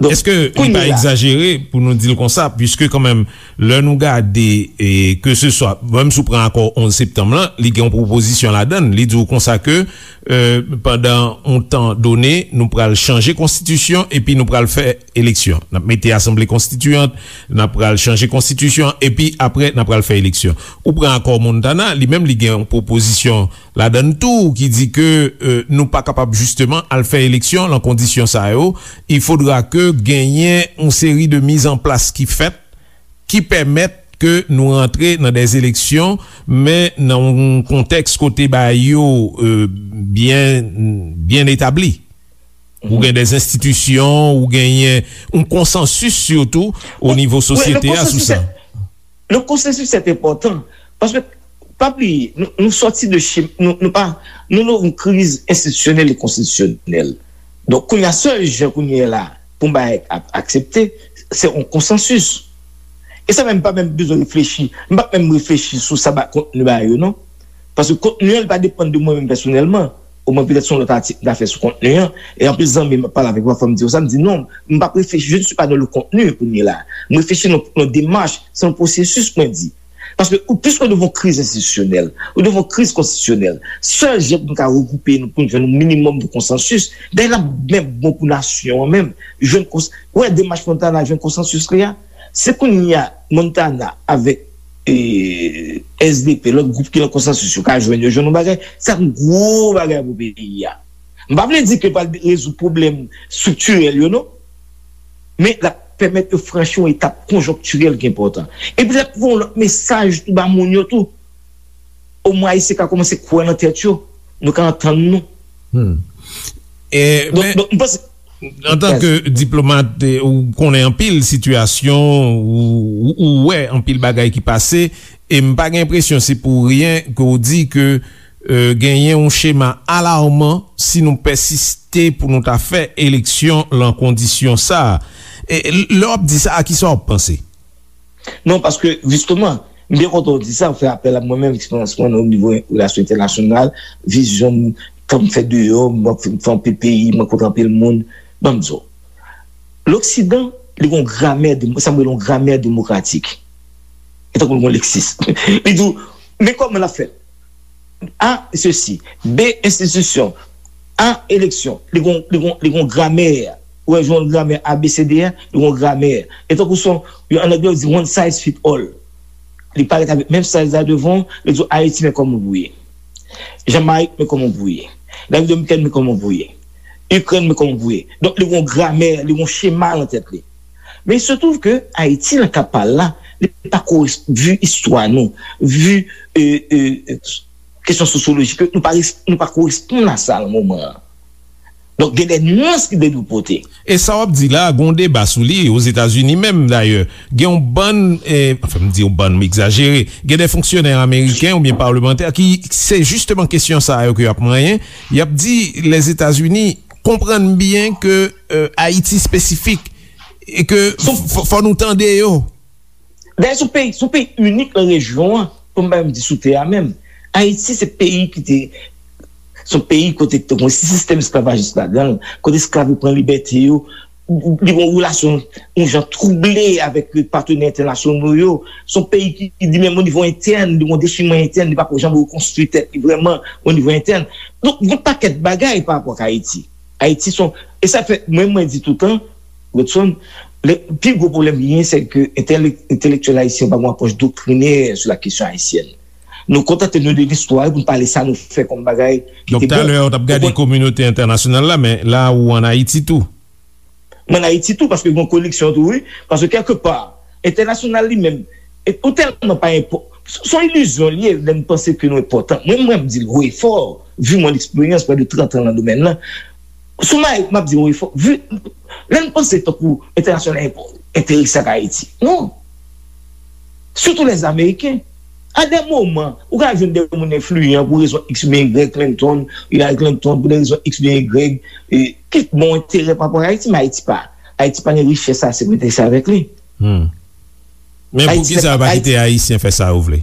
Èske li pa egzajere pou nou di l konsa, piske kanmenm, lè nou gade, e, ke se swa, menm si w pran akò onz septanm lan, li gen yon pwopozisyon ladan l, li di w konsa ke, e, pandan yon tan done, nou pral chanje konstitisyon epi nou pral fè eleksyon. N ap mete asanble konstitiyant, n ap pral chanje konstitisyon, epi apre, n ap pral fè eleksyon. Ou pran akò Montana, li menm li gen yon pwopozisyon ladan l tou ki di ke, e, nou pa kapab jisteman al fè eleksyon lan kondisyon sa yo. Il faudra ke genyen yon seri de mizanplas ki fèt, ki pèmèt ke nou rantre nan dè eleksyon, men nan yon kontèks kote bagay yo, e, byen, byen etabli. Ou gen dè enstitisyon, ou genyen yon konsansis sitou o nivo sosyete a sou sa. Le konsansis se enpòtan, paske pa bliye, nou, nou sòti de chim, nou, nou pa, nou nan yon kriz enstitisyonèl e konstitisyonèl. Donk, kounye a, sèl jan kounye a la pou m bay ak, aksepte, se yon konsansis. E sa menm pa menm bezwen reflechi. M pa menm reflechi sou sa ba kontni ba yo, non. Paske kontni an, li pa depann de mwen menm pèsonèlman. Omwen, petèt se yon lòt atik m ta fè sou kontni an. E anpil zanmi m ap pale avèk mwen, fò m di yo sa, m di non, m p ap reflechi, je ne suis pas dans le contenu kounye la. M reflechi nan, nan demach, se yon pwosesis, mwen di. Paske ou, piske ou devan yon kriz enstitisyonèl, ou devan yon kriz konstitisyonèl, sèl jan pou nou ka regwoupe nou, pou nou jwenn yon minimòm de konsansis, dayè l ap menm bon pou nasyon an menm, jwenn kons, wè demach Montana jwenn konsansis li a, se kounye a Montana avèk, e, S D P, lòt gwoup ki nan konsansis yo ka jwenn, yo jwenn yon bagay, se ap yon gwo bagay pou peyi a. M pa vle di ke l pral rezoud pwoblèm estriktirèl yo, non. Men l ap pèmèt yo franchi yon etap konjonktirèl ki enpòtan. Epi l ap voye yon lòt mesaj tou ba moun yo tou. Omwen Ayisyen ka kòmanse kwè nan tèt yo. Nou ka antann nou. Antanke diplomat, ou konnen anpil sitiyasyon, ou wè anpil bagay ki pase, e m pa gen enpresyon se pou ryen ke w di ke genyen yon chema alarman si nou pèsiste pou nou ta fè eleksyon lan kondisyon sa a. Lè w ap di sa, a kisa w ap panse? Non, paske, jisteman, m byen kontan w di sa, w fè apèl a mwen menm, eksperyans mwen nan nivo relasyon entènasyonal, vizyon m, tan m fè deyò, mwen fè anpil peyi, mwen kontre anpil moun. Ban m di w, Loksidan, li gen yon gramè, sa m rele yon gramè demokratik. E tankou l gen yon leksis. Li di w, men kòman l ap fèt? A, sesi. B, enstitisyon. A, eleksyon. Li gon, li gon, li gon gramè. Ou wè, jan yon gramè A B C D a, li gon gramè. E tankou son, yo, an anglè, yo di one size fit all. Li parèt avèk menm size la devan, li di w, Ayiti, men kòman pou ye. Jamayik, men kòman pou ye. Repiblik Dominikèn, men kòman pou ye. Ikrèn, men kòman pou ye. Donk, li gon gramè, li gon chema nan tèt li. Men il se trouve que Ayiti, nan ka pa l la, li pa korespon, vi istwa nou, vi, e, e, kesyon sosyolojik, nou pa, nou pa koresponn a sa nan moman an. Donk, gen de nyans ki dwe nou pote. E sa w ap di la, gen yon deba sou li, Ozetazini menm, dayè. Gen yon bann, e, anfen, m di yon bann, m egzajere, gen de fonksyonè ameriken oubyen palemantè ki, se jisteman kesyon sa yo ke y ap manyen. Y ap di, Lèzetazini, konprann byen ke, e, Ayiti espesifik, e ke fò nou tande yo. Dayè, se yon peyi, se yon peyi inik nan rejyon an, pou m pa menm di sou tè a menm. Ayiti, se peyi ki te, se yon peyi kote ki te gen yon sistèm esklavajis ladan l, kote esklav yo pran libète yo, li gen yon relasyon, yon jan twouble avèk patenè entènasyonal yo. Se yon peyi ki, ki li menm, o nivo entèn, li gen yon dechiman entèn, li pako janm rekonstwi tèt li vrèman, o nivo entèn. Donk, gen yon pakèt bagay pa rapò ak Ayiti. Ayiti se yon, e sa fè, mwen, mwen di toutan, Godson, le, pi gwo pwoblèm li genyen, se ke entèlek, entèlektyèl ayisyen pa gen yon apwòch doktrinè sou la kesyon ayisyèn. Nou kontante nou de listwa pou nou pale sa nou fè kòm bagay ki te bon. Donk, talè a, w t ap gade kominote entènasyonal la, men la, ou ann Ayiti tou. Mwen ann Ayiti tou, paske gen yon koneksyon tou, wi. Paske, kèlkepa, entènasyonal li menm, e, ou tèlman pa enpò-, s-, s on ilizyon li ye, lè n panse ke nou enpòtan. Mwen, mwen, m di l haut et fort, vi mwen eksperyans, près de trant an nan domèn nan. Sou Mayik, m ap di l haut et fort, vi, lè n panse tankou entènasyonal enpò-, enterese ak Ayiti. Non. Sitou lèzameriken. A de moman, ou ka jwenn de moun enfliyan pou rezon X oubyen Y, Clinton, Hillary Clinton, pou de rezon X oubyen Y, e, ki bon enterè pa rapò ak Ayiti, men Ayiti pa. Ayiti pa gen richès sa, se pou enterese avèk li. Men poukisa yo pa kite Ayisyen fè sa yo vle?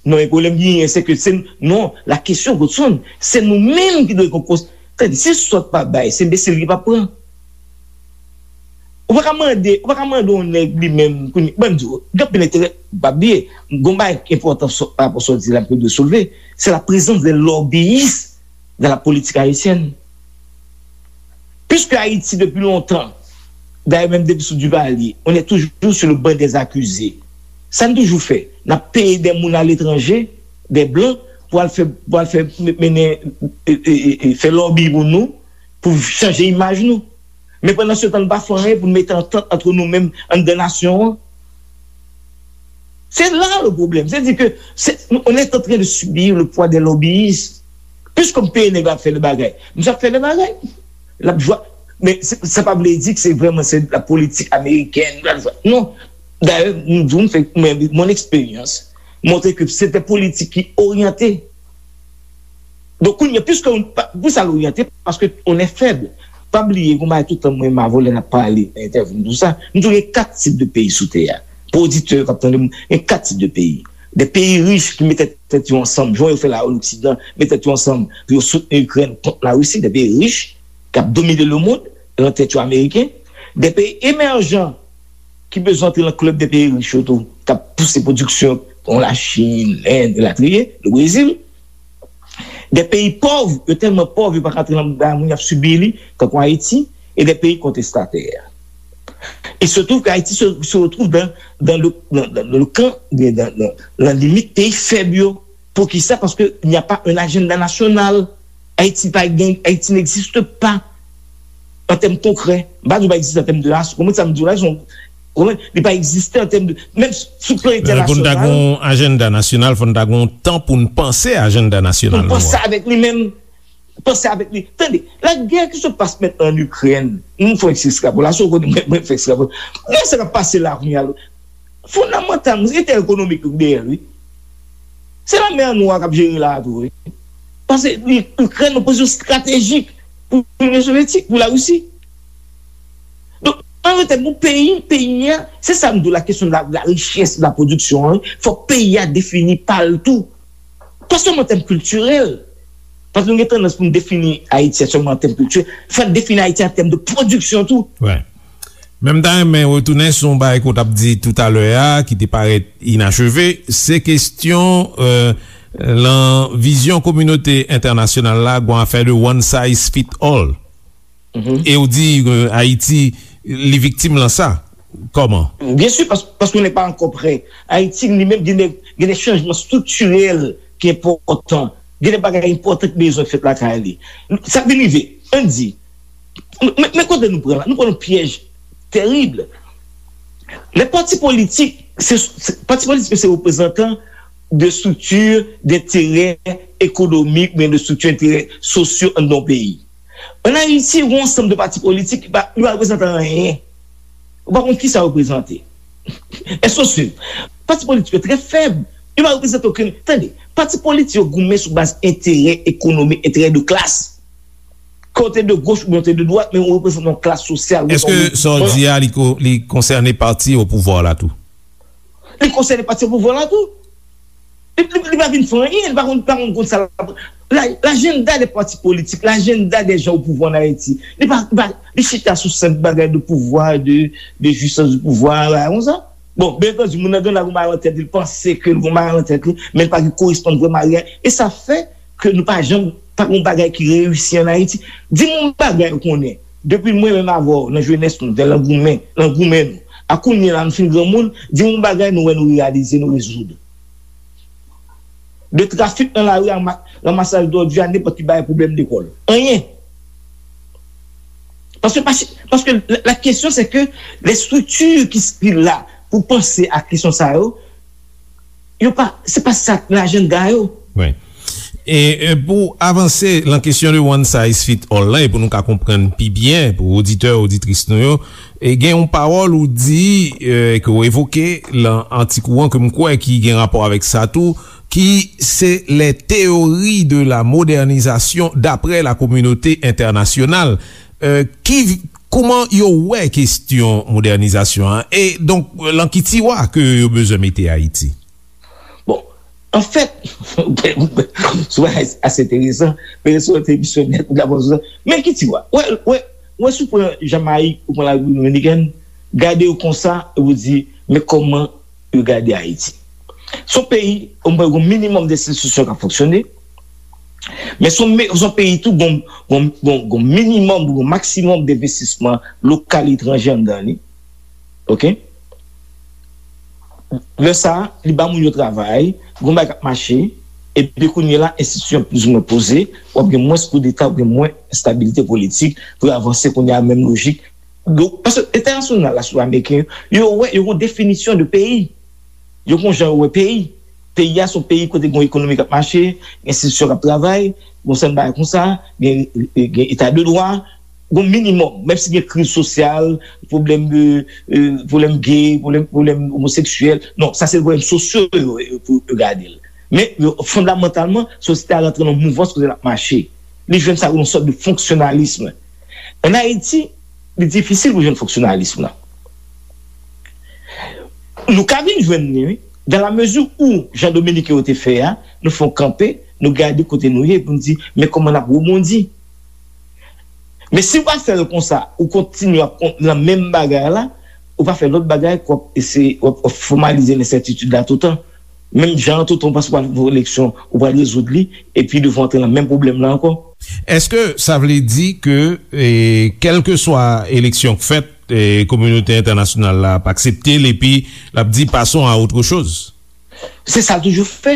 Non, men pwoblèm ki genyen, se ke se, non, la kesyon, Godson, se nou menm ki dwe gen kons-, tande, se sòt pa bay, se enbesil ki pa pran. Ou pa ka mande, ou pa ka mande yon nèg li menm, kounye, ban m di w, gen anpil enterè, pa bliye, gon bagay ki enpòtan sou, pa rapò sa w di la, ke dwe soulve, c'est la présence des lobbyistes dans la politique haïtienne. Puisque Haïti, depuis longtemps, d'ailleurs, même depuis sous Duvalier, on est toujours sur le banc des accusés. Sa n toujou fè, n ap peye de moun aletranje, de blan, pou al fè, pou al fè mennen, e, e, e, e, fè lòbi pou nou, pou chanje imaj nou. Men pandan se tan, nou pa fè anyen pou nou mete antant ant nou menm anndan nasyon an. C'est là le problème. C'est-à-dire que c'est, on est en train de subir le poids des lobbyistes. Puisque m peye nèg la ap fè de bagay, misye ap fè de bagay. L ap jwa. Men se- sa pa vle di ke se vrèman se la politik amerikèn. Non. Dayè, m di w, m fè, mwen, mon eksperyans montre ke se te politik ki oryante. Donk, kounye a, puisque on- pa- pou sa l oryante, paske on est faible. Pa bliye, gon bagay tout tan mwen, ma volè n ap pale nan entèvyou m, tou sa, m di w gen kat tip de peyi sou tè a. Pou oditè k ap tande m, gen kat tip de peyi. De peyi rich ki mete tèt yo ansanm, jan yo fè la o Loksidan, mete tèt yo ansanm pou yo soutni Ikrèn kont Larisi, de peyi rich k ap domine lemonn, nan tèt yo ameriken, de peyi emèjan ki bezwen antre nan klèb de peyi rich yo tou, k ap pouse pwodiksyon kon Lachin, Lend, elatriye, le Brezil. De peyi pòv, yo tèlman pòv, yo pa ka antre nan bagay moun y ap sibi li, tankou Ayiti, e de peyi kontestatè. Il se trouve que Haïti se, se retrouve dans, dans le, dans, dans le camp, dans, dans, dans la limite pays faible. Pourquoi ça? Parce qu'il n'y a pas un agenda national. Haïti, pa gen, Haïti n'existe pas en termes concrets. M pa di w pa egziste an tèm de ras. Kòman sa m di w la, se yon, kòman, li pa egziste an tèm de, menm sou plan entènasyonal. Pou n ta gen yon ajanda nasyonal, fò n ta gen yon tan pou n panse ajanda nasyonal nou an. Pou n panse avèk li menm. Panse avèk li. Tande, la guerre qui se passe maintenant en Ukraine, nou fè yon ti ekstrapolasyon, kote mwen, mwen fè ekstrapolasyon. Gade sa k ap pase la kounye a. Fondamantalman, se entèrè ekonomik yo ki dèyè l, wi. Se lanmè an Nwa k ap jere la a tou, wi. Paske li- Ikrèn nan pozisyon estratejik pou Linyon Sovyetik, pou Larisi. Donk, an rete pou peyi, peyi a, se sa m di w, la kesyon de la, de la richès, de la pwodiksyon an, fòk peyi a defini pa l tou. Pa sèlman an tèm kiltirèl. Paske nou gen tandans pou n defini Ayiti sèlman an tèm kiltirèl. Fò n defini Ayiti an tèm de pwodiksyon tou. Wi. Men m ta renmen retounen sou yon bagay ke w t ap di toutalè a, ki te parèt inacheve. Se kesyon, euh, lan vizyon kominote entènasyonal la, gon afè de one size fit all. E w di, euh, Ayiti, li viktim lan sa. Kòman? Byen si, pas- paske nou pa ankò prè. Ayiti, li menm, gen de, gen de chanjman striktirèl ki enpòtan. Gen de bagay enpòtan ki bezwen fèt lakay li. Sa k vin rive, ann di, men, men kote nou pran la? Nou pran yon pyèj tèrib. Lè pati politik, se, se, pati politik se reprezantan de strikti denterè ekonomik, oubyen de strikti denterè sosyo anndan yon peyi. Ann Ayiti, gen yon ansanm de pati politik ki pa, ki pa reprezante anyen. Ou pa konn kisa yo reprezante. Èske w swiv? Pati politik yo trè fèb. Yo pa reprezante okenn. Tande, pati politik yo goumen sou baz enterè ekonomik, enterè de klas. Ke w te de goch oubyen w te de dwat, men ou reprezante yon klas sosyal. Èske sa w di a, li ko- li konsène pati o pouvwa la tou? Li konsène pati o pouvwa la tou. Li, li, li pa vin fè anyen, li pa konn, pa konn, konn sa l ap. La, lajanda de pati politik, lajanda de jan o pouvwa ann Ayiti, li pa, li pa, li chita sou senp bagay de pouvwa, de, de jwisans de pouvwa, bagay konsa. Bon, byen antandi, moun nan gen la gon bagay nan tèt li, li panse ke l gon bagay nan tèt li, men li pa gen koresponn vrèman a reyalite. E sa fè ke nou pa janm, pa gon bagay ki reyisi ann Ayiti. Di m yon bagay ou konnen, depi mwen menm avè w, nan jenès nou, lè nan goumen, nan goumen nou, a kounye a la nou fin granmoun, di m yon bagay nou wè nou reyalize, nou rezoud. De trafik nan lari a ma- ranmasaj dòdi a nenpòt ki bagay pwoblèm lekòl. Anyen. Paske, paske, paske la, la kesyon se ke les structures ki, ki la pou panse a kesyon sa yo, yo pa, se pa sa k nan ajanda yo. Wi. E, e pou avanse lan kesyon de one size fit all lan, e pou nou ka konprann pi byen, pou oditè, oditris nou yo, e gen yon pawòl ou di, e, ke w evoke lan atik ou an, ke m kwè ki gen rapò avèk sa tou, ki se les théories de la modernisation d'après la communauté internationale. E, ki, kòman yo wè kesyon modènizasyon an? E donk, lan ki tiwa ke yo bezwen mete Ayiti? Bon, anfèt, se ase enteresan, men se yon emisyon nèt, ou dakò sou sa. Men ki tiwa? Wè, wè, wè, si w pran Jamayik, ou pran Larepiblik Dominikèn, Gade yo konsa, epi w di, men kòman yo gade Ayiti. Se yon peyi, omwen, gen yon minimòm de enstitisyon k ap fonksyone, men se yon me- se yon peyi tou, gen yon- gen yon- gen yon minimòm, gen yon maksimòm de envestisman lokal, etranje anndan li. Oke? Lè sa a, li ba moun yo travay, gen yon bagay k ap mache, epi kounye a la, enstitisyon plizoumwen poze, w ap gen mwens koudeta, w ap gen mwens enstabilite politik pou yo avanse kounye a, menm lojik. Donk, paske entènasyonal la, sou ameriken yo, yo wè, yo gen yon definisyon de peyi. Yo gen yon jan yo wè peyi. Peyi a se yon peyi kote gen yon ekonomi k ap mache, gen enstitisyon k ap travay, gen yon sèl bagay konsa, gen, gen eta de dwa, gen yon minimòm, menm si gen kriz sosyal, pwoblèm de, euh, pwoblèm gay, pwoblèm, pwoblèm omoseksyèl. Non, sa se pwoblèm sosyo yo, yo, pou yo gade l. Men, yo, fondamantalman, sosyete a rantre nan yon mouvans kote l ap mache. Li jwenn sa yon sòt de fonksyonalis. Ann Ayiti, li difisil pou jwenn fonksyonalis lan. Nou ka vin jwenn li, wi. Dan la mezi ou, jan Dominiken yo te fè a, nou fè yon kanpe, nou gade kote nou ye, pou nou di, men kòman n ap rebondi. Men si w pa fè l konsa, ou kontinye ap kon- nan menm bagay la, ou pa fè lòt bagay, k w ap eseye, w ap, w ap fòmalize lensètitid la toutan. Menm jan an, toutan w panse w pral fè eleksyon, ou pral rezoud li, epi nou antre nan menm pwoblèm la ankò. Èske sa vle di ke, e, kèlkeswa eleksyon k fèt, e, kominote entènasyonal la ap aksepte l, epi l ap di, passons à autre chose? Se sa l toujou fè.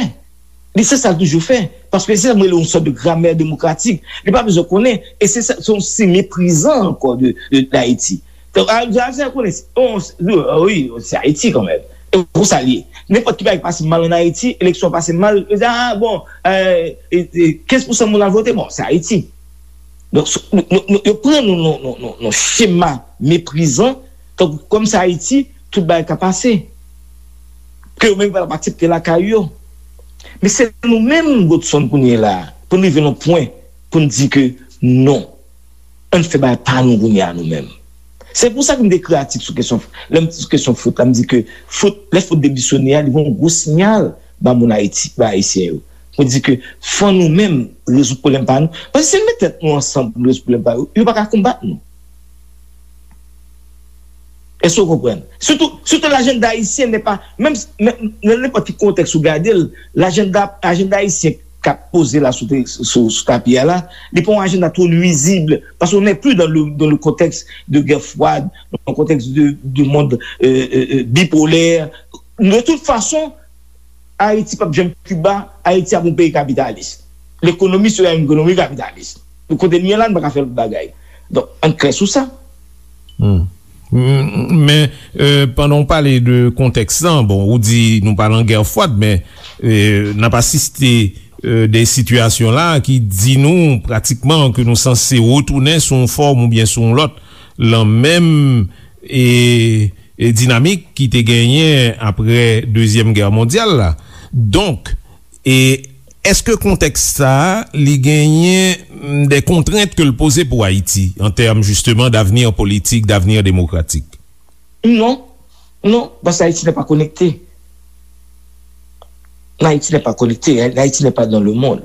Li se sa l toujou fè. Paske se sa m rele yon sòt de gramè demokratik. Li pa bezwen konnen. E se sa, se yon siy meprizan ankò de, de, d Ayiti. Donk, a, a, a, konnen, se- on, se- wi, se Ayiti kanmenm. E konsa l ye. Nenpòt ki bagay ki pase mal ann Ayiti, eleksyon pase mal, yo di, a, bon, e, e, e, kenz pousan moun al vote, bon, se Ayiti. Donk, s- nou, nou, nou, yo pran nou nan, nan, nan, nan chema meprizan, tankou kòm se Ayiti, tout bagay ka pase. Ke yo menm pa t ap aksepte lakay yo. Men se nou menm, Godson, kounye a la, pou n rive nan pwen, pou n di ke non. Ann fè bagay pa nou kounye a nou menm. Se pou sa ke m te ekri atik sou kesyon, lè m, sou kesyon fwot la, m di ke fwot, lè fwot demisyone a, li voye yon gwo siyal ba moun Ayiti, ba Ayisyen yo. Pou di ke fò nou menm rezoud pwoblèm pa nou. Paske si n met tèt nou ansanm pou n rezoud pwoblèm pa yo, yo pa ka konbat nou. Èske w konprann? Surtout, surtout l'agenda haïtien n'est pas, menm, menm nan nenpòt ki kontèks ou gade l, l'agenda, ajanda ayisyen k ap poze la sou, sou, sou tapi a la, li pa yon ajanda twò nwizib, paske on n'est plus dans le, dans le contexte de guerre froide, dans le contexte de, de monde, euh, euh, euh, bipolaire. De toute façon, Ayiti p ap janm Kiba, Ayiti ap yon peyi kapitalis. Lekonomi se yon ekonomi kapitalis. Donk, kote n ye la, n pa ka fè lòt bagay. Donk, ann klè sou sa. Hmm. M- Men, euh, pandan w pale de kontèks lan, bon, ou di nou pa nan gè fwad, men, euh, n ap asiste, euh, de sitiyasyon la ki di nou pratikman ke nou sanse retounen sou yon fòm oubyen sou yon lòt, lan menm, e, e dinamik ki te genyen apre Dezyèm Gè Mondyal la. Donk, e èske kontèks sa a, li genyen, mm, de kontrent ke l poze pou Ayiti, an tèm, jisteman, d'avenir politik, d'avenir démocratique? Non, non, paske Ayiti n'est pas connecté. Haïti n'est pas connecté, Haïti n'est pas dans le monde.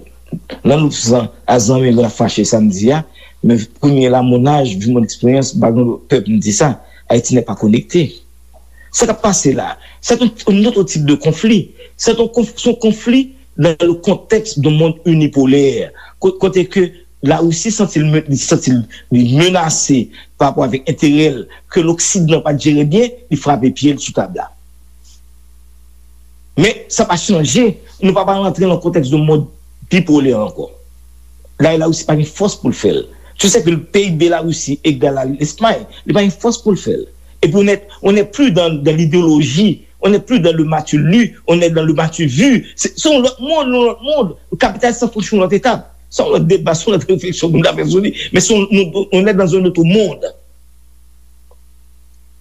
Nan nou san a zanmi yo ap fache samdi a, men kounye la, mon âge, vu mon expérience, m pa gen pè pou m di sa, Haïti n'est pas connecté. Sa k ap pase la, c'est un, un autre type de conflit. C'est un conf- c'est un conflit dans le contexte d'un monde unipolaire. Ko- Kote ke Larisi santi l, li santi l, li menase pa rapò avèk enterè l ke Loksidan pa t jere byen, li frape pye l sou tab la. Men sa pa chanje, nou pa pral rantre nan kontèks de mond bipolè ankò. Dayè Larisi pa gen fòs pou l fè l. Tu sais que le P I B Larisi egal a Lespay, li pa gen fòs pou l fè l. Epi on n'est, on n'est plus dans, dans l'idéologie, on n'est plus dans le m'as-tu lu, on est dans le m'as-tu vu. Se se yon lòt mond, yon lòt mond. Kapitalis lan franchi yon lòt etap. Se yon lòt deba, se yon lòt refleksyon pou nou ta fè sou li. Men se yon, nou, on est dans un autre monde.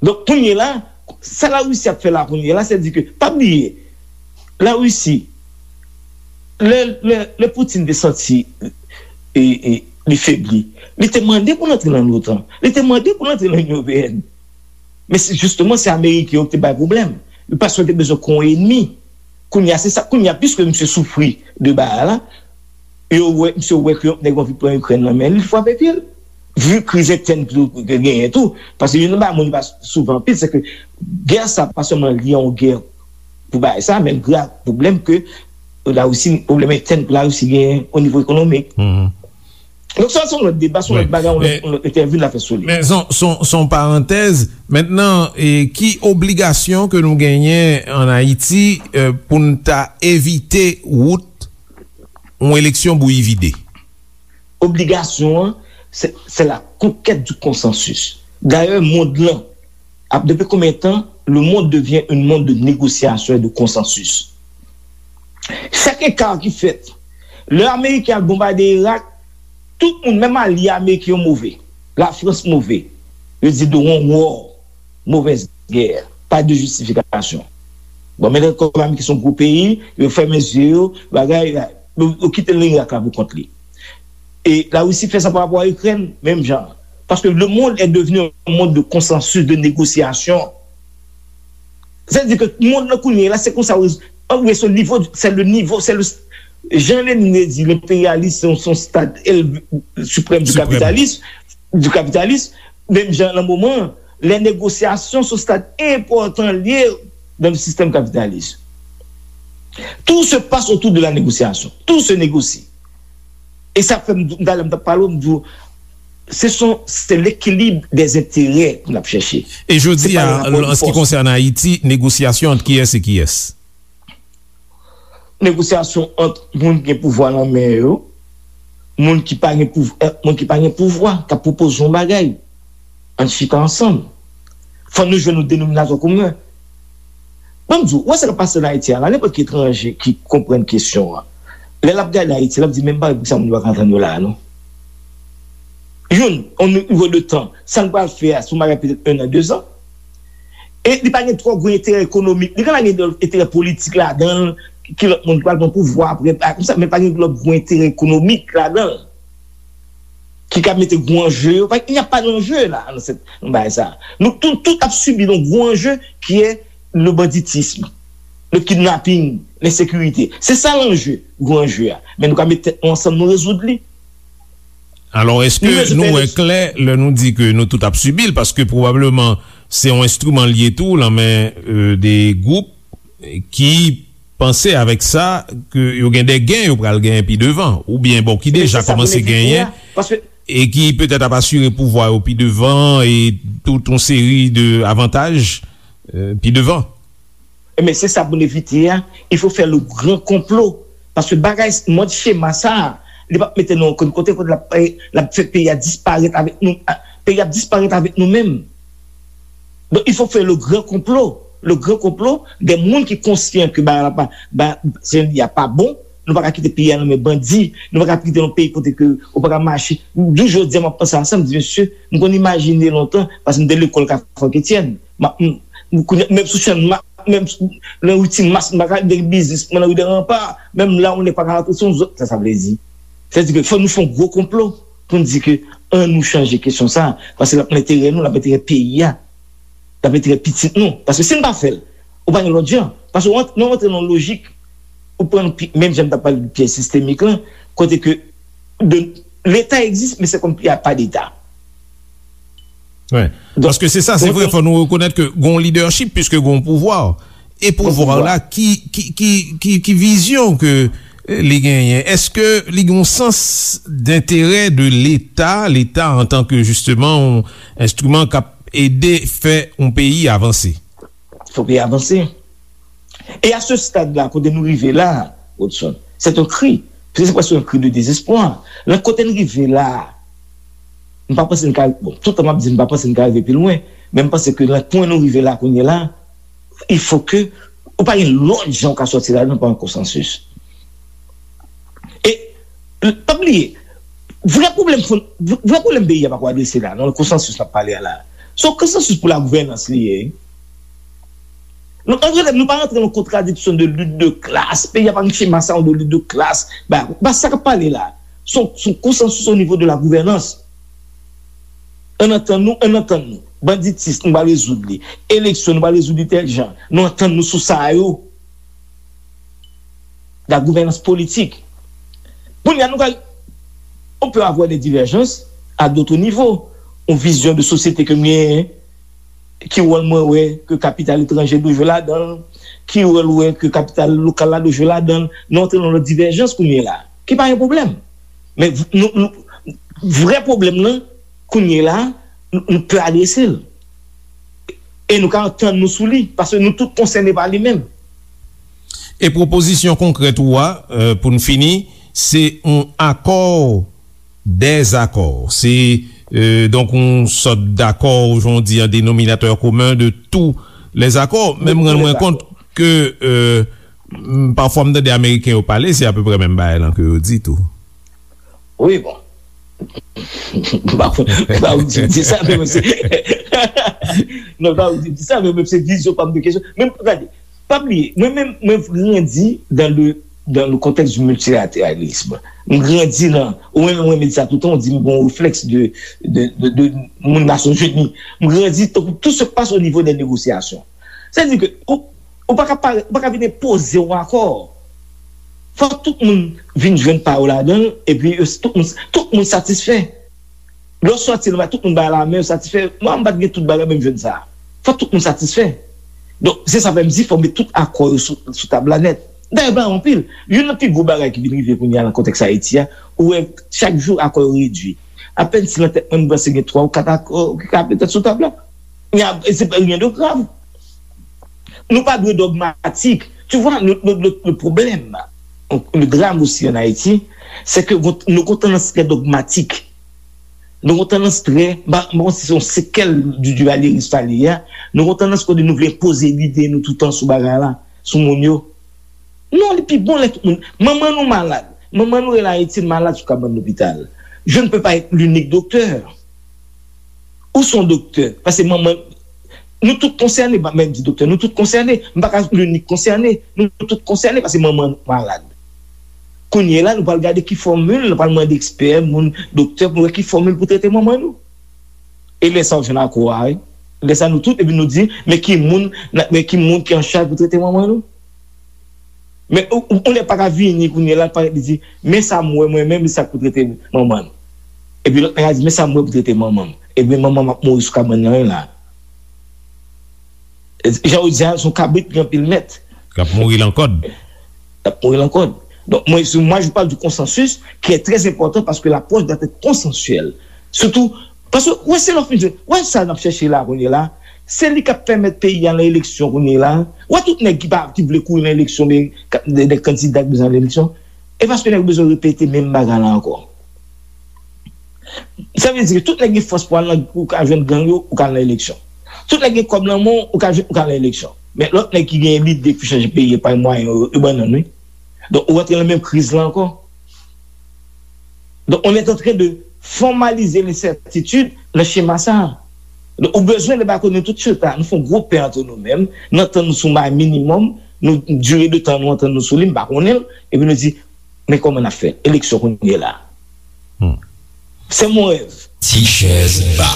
Donk, kounye la, sa Larisi ap fè la kounye la, se di ke, pa bliye, Larisi, lè, lè, lè Putin te santi e, e, li febli, li te mande pou l antre nan l'OTAN, li te mande pou l antre nan Inyon Ewopeyèn. Men se, jisteman, se Ameriken yo ki te bay pwoblèm. Yo paske yo te bezwen kon enmi. Kounye a, se sa, kounye a, piske misye soufri de bagay la, yo wè, misye wè ke yon nèg anvi pran Ikrèn nan men li, li frape pye l. Vu kriz entèn tou ke genyen tou, paske youn nan bagay moun pa souvan anpil, se ke gè sa pa sèlman lye a yon gè pou bagay sa, men l gen pwoblèm ke Larisi, pwoblèm entèn ke Larisi genyen o nivo ekonomik. Donk sa se yon lòt deba, se yon lòt bagay, yon lòt entèvyou n a fè sou li. Men se yon parantèz. Mentnan, ki obligasyon ke nou genyen ann Ayiti pou n ta evite wout yon eleksyon bouyi vide? Obligasyon an, c'est la conquête du consensus. Dayè, mond lan ap, depi konbyen tan le monde devient un monde de négociation et de consensus? Chak eka ki fèt, lè Ameriken al bonbade Irak, tout moun, menm alye Ameriken yo move. Lafrans move. Yo di de one war, mauvaise guerre, pas de justification. Bon, men kòm Ameriken se yon gwo peyi, yo fèmen zye yo, bagay, yo kite Irak la pou kont li. E Larisi fè sa pa rapò a Ikrèn, menm jan. Paske le monde est devenu un monde de consensus, de négociation. Sa vle di ke mond lan kounye a la, se konsa, ann, se nivo, se le nivo, se le, jan Lenin te di, lenperyalis se yon, se yon stad suprême du capitalisme, du capitalisme, menm jan nan moman an, les négociations se yon stad enpòtan l ye dans le système capitaliste. Tout se passe autour de la négociation. Tout se négocie. E sa fè m, talè m t ap pale w, m di w, se son, se l'équilibre des intérêts pou n ap chèche. E jodi a, an se ki konsène Ayiti, negosyasyon ant kiyès e kiyès? Negosyasyon ant moun ki gen pouvwa nan men yo, moun ki pa gen pouvwa, moun ki pa gen pouvwa, k ap pwopoze yon bagay. Ann chita ansanm. Fò nou jwenn yon denominatè komen. Ban m di w, ou wè sa k ap pase ann Ayiti a la, nenpòt ki etranje ki konprann kesyon an, lè l ap gade Ayiti, l ap di, "Men m pa wè poukisa moun yo pa ka antann yo la a, non." Youn, yon nivo de tan, sa n pral fè a, se yon bagay petèt en an, de zan. E li pa gen twò gwo enterè ekonomik. Li ka gen enterè politik ladan l, ki lòt moun ki pral pran pouvwa apre, a, konsa, men pa gen lòt gwo enterè ekonomik ladan l. Ki ka mete gwo anje yo. Paske il n'y a pas d'enjeu la, nan bagay sa. Nou tout, tout ap sibi yon gwo anje ki è le banditisme, le kidnapping, lensekirite. Se sa lanje, gwo anje a. Men nou ka met tèt nou ansanm, nou rezoud li. Alò, èske nou wè klè lè nou di ke nou tout ap sibi l? Paske pwobableman se yon enstriman l ye tou, nan men, euh, de gwoup ki panse avèk sa ke yo gen de gen yo pral genyen pi devan, oubyen bon, ki deja kòmanse genyen, e ki petèt ap asire pouvwa yo pi devan, e tout yon seri de avantaj, euh, pi devan. Ebyen, se sa pou n evite a. Il faut faire le grand complot. Paske bagay, mòd chema sa a, li p ap mete nou okenn kote, kote l ap, l ap fè peyi a disparèt avèk nou, peyi a ap disparèt avèk nou menm. Donk, il faut faire le grand complot. Le grand complot, de moun ki konsyan ke bagay la pa, ba, se, y a pa bon, nou pa ka kite peyi a nan men bandi, nou pa ka kite yon peyi kote ke ou pa ka mache. Jou jodi a, m ap panse a sa, m di, mesye, m konn imajine lontan, paske m te lekòl Kafou Etienne. M ap, m, m, kounye a, menm sou chèn, m ap, menm sou, nan ri Ti Mas, m pa ka, de biznis mwen nan ri de Ranpa, menm la, ou nèg pa ka rantre, se yon zòt, sa, sa vle di. Sa vle di ke fò nou fè yon gwo konplo pou n di ke ann nou chanje kesyon sa, paske l ap nan enterè nou, l ap enterè peyi a. L ap enterè pitit nou. Paske si n pa fè l, ou pa gen lòt jan. Paske w ant-, nou rantre nan yon lojik, ou pran pi-, menm jan m t ap pale de pyèj sistemik lan, kote ke de, Leta egziste, men se kòm y a pas d'État. Wi. Donk, paske se sa, se vre, fò nou rekonèt ke gon lidèchip, piske gon pouvwa. E pouvwa la, ki, ki, ki, ki, ki vizyon ke, eh, li genyen? Èske li gen yon sans d'intérêt de Leta, Leta antanke, jisteman, yon enstriman k ap ede fè yon peyi avanse? Fè yon peyi avanse. E a se stad la, kote nou rive la, Rodson, c'est un cri. Se prèske yon cri de désespoir. Nan kote n rive la, m pa panse n ka, bon, tout tan m ap di m pa panse n ka rive pi lwen, men m panse ke nan pwen nou rive la kounye a la, il faut que ou pa gen lòt jan ou ka sòti ladan pa yon konsansis. E, pa bliye, vrè pwoblèm fon-, vrè pwoblèm peyi a pako adrese la, nan konsansis n ap pale a la. Se yon konsansis pou lagouvènans li ye. Nou, ann rele, nou pa rantre nan kontradiksyon de lit de klas. Peyi a pa gen chema sa yo de lit de klas. Ba, ba sa k ap pale la. Se yon, se yon konsansis o nivo de lagouvènans. Ann antann nou, ann antann nou. Banditis, nou pral rezoud li. Eleksyon, nou pral rezoud li tèl jan. Nou antann nou sou sa yo. Lagouvènans politik. Kounye a, nou pral, on peut avoir des divergences, a dotre nivo. Yon vizyon de sosyete ke m genyen, ki wòl mwen wè ke kapital etranje dwe jwe ladan l, ki wòl ou wè ke kapital lokal la dwe jwe ladan l. Nou antre nan lòt divèjans kounye la, ki pa yon pwoblèm. Men v- nou, nou, vrè pwoblèm nan, kounye la, nou, nou pè adrese l. E nou ka antann nou sou li, paske nou tout konsène pa li menm. E pwopozisyon konkrèt ou a, euh, pou n fini, se yon akò dèzakò. Se, euh, donk, yon sòt dakò, jan w di, an denominatè komen de tous les accords. Men m rann mwen kont ke, euh, m- pafwa m tande Ameriken yo pale, se apeprè menm bagay lan ke yo di tou. Wi, bon. M pa konn, m pa konn di sa, men se, non, m pa konn di sa, men se vizyon pa m de kesyon. Men gade, pa bliye, mwen menm, mwen grandi dans le, dans le contexte du multilatéralisme. M grandi nan, ou menm, mwen di sa toutan, ou di m gon reflèks de, de, de, de moun Nasyonzini. M grandi tankou tout se passe au niveau des négociations. Sa di ke ou, ou pa ka pare, ou pa ka vin enpoze yon akò. Fòk tout moun vin jwenn pa yo ladan l, epi yo, tout moun, tout moun satisfè. Lè w sòti la, tout moun bay lamen, yo satisfè. Mwen, m pa t gen tout bagay, men m jwenn sa. Fòk tout moun satisfè. Donk, se sa fè m di, fò met tout akò yo sou, sou tab la nèt. Dayè, bagay anpil. Youn nan pi gwo bagay ki vin rive kounye a nan kontèks Ayiti a, ou wè chak jou akò yo redui. Apèn si nan tèt mwen, m panse gen twa ou kat akò ki ka petèt sou tab la. Men ap- se pa rien de grave. Nou pa dwe dogmatik. Tu vois, le, le, le, le problème, le drame aussi en Haïti, c'est que nou gon tandans trè dogmatik. Nou gon tandans trè, ba, bon, se yon sekèl du duvalyerism sa li ye a. Nou gon tandans kote nou vle enpoze lide nou toutan sou bagay la, sou moun yo. Non, li pi bon lè tout moun. Manman nou malad. Manman nou rele Ayiti, l malad sou kabann lopital. Je ne peux pas être l'unique docteur. Ou se yon doktè. Paske manman, nou tout konsène, pa menm di doktè, nou tout konsène. M pa ka l'unique konsène. Nou tout konsène paske manman nou malad. Kounye la, nou pral gade ki fòmil, nou pral mande ekspè, moun, doktè, pou wè ki fòmil pou trete manman nou. E lè sa, w jwenn akò a, wi. Lè sa, nou tout, epi nou di, men ki moun, men ki moun ki an chaj pou trete manman nou? Men ou, ou, ou nèg pa ka vini kounye la, parèt li di, men sa m wè mwen menm, li sa k pou trete manman l. Epi lòt nèg la di, men sa m wè pou trete manman m. Epi manman m ap mouri sou kabann nan la. Jan ou di a, se yon kabrit ki gen anpil mèt. K ap mouri lan kòd. K ap mouri lan kòd. Donk, mwen, si, moi, je parle du consensus qui est très important parce que l'approche doit être consensuelle. Surtout, paske, wè, se lè w fin jwenn, wè sa n ap chèche la kounye la, se li k ap pèmèt peyi a nan eleksyon kounye la. Wè tout nèg ki pa, ki vle kouri nan eleksyon, men, ka- de, de kandida ki bezwen al eleksyon, e paske nèg yo bezwen repete menm bagay la ankò. Sa vle di ke tout nèg gen fòs pou al nan, ou ka jwenn gang yo, ou ka al nan eleksyon. Tout nèg gen kòb nan men w, ou ka jwenn, ou ka al nan eleksyon. Men lòt nèg ki gen lide pou chanje peyi a pa mwayen yo, yo bannann, wi. Donk, ou rantre nan menm kriz la ankò. Donk, on est en train de formaliser l'incertitude nan chema sa a. Donk, ou bezwen debakonnen tout chita, nou fè yon gwo pè antre nou menm, nou antann nou sou may minimòm, nou, dire de tan nou antann nou sou li, m pa konnen l, epi nou di, men kòman n ap fè? Eleksyon kounye la. Se mon rèv. Ti chèz ba.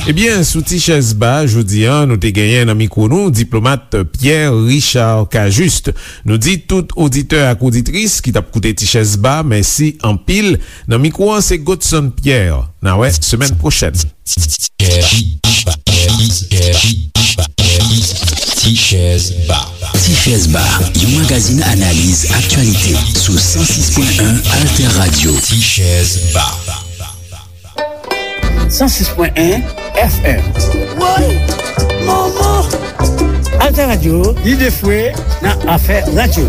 Ebyen, sou Ti chèz ba, jodi a, nou te genyen nan mikwo nou, diplomat Pierre Richard Cajuste. Nou di tout oditè ak oditris ki t ap koute Ti chèz ba, mèsi anpil. Nan mikwo an, se Godson Pierre. N a wè semèn pwochèn. Ti chèz ba. Ti chèz ba, yon magazin analiz aktyalite sou san sis pwen en Alter Radio. Ti chèz ba. San sis pwen en F M. Woy! Manman! Alter Radio, lide fwe nan afè radyo.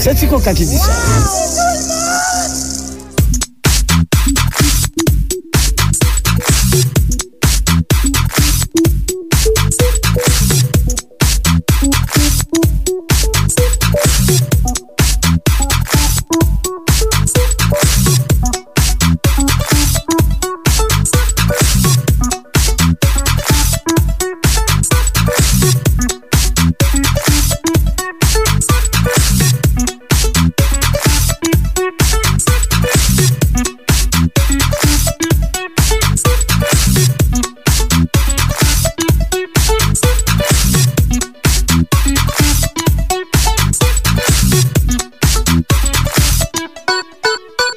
Se Ti Koka ki di sa.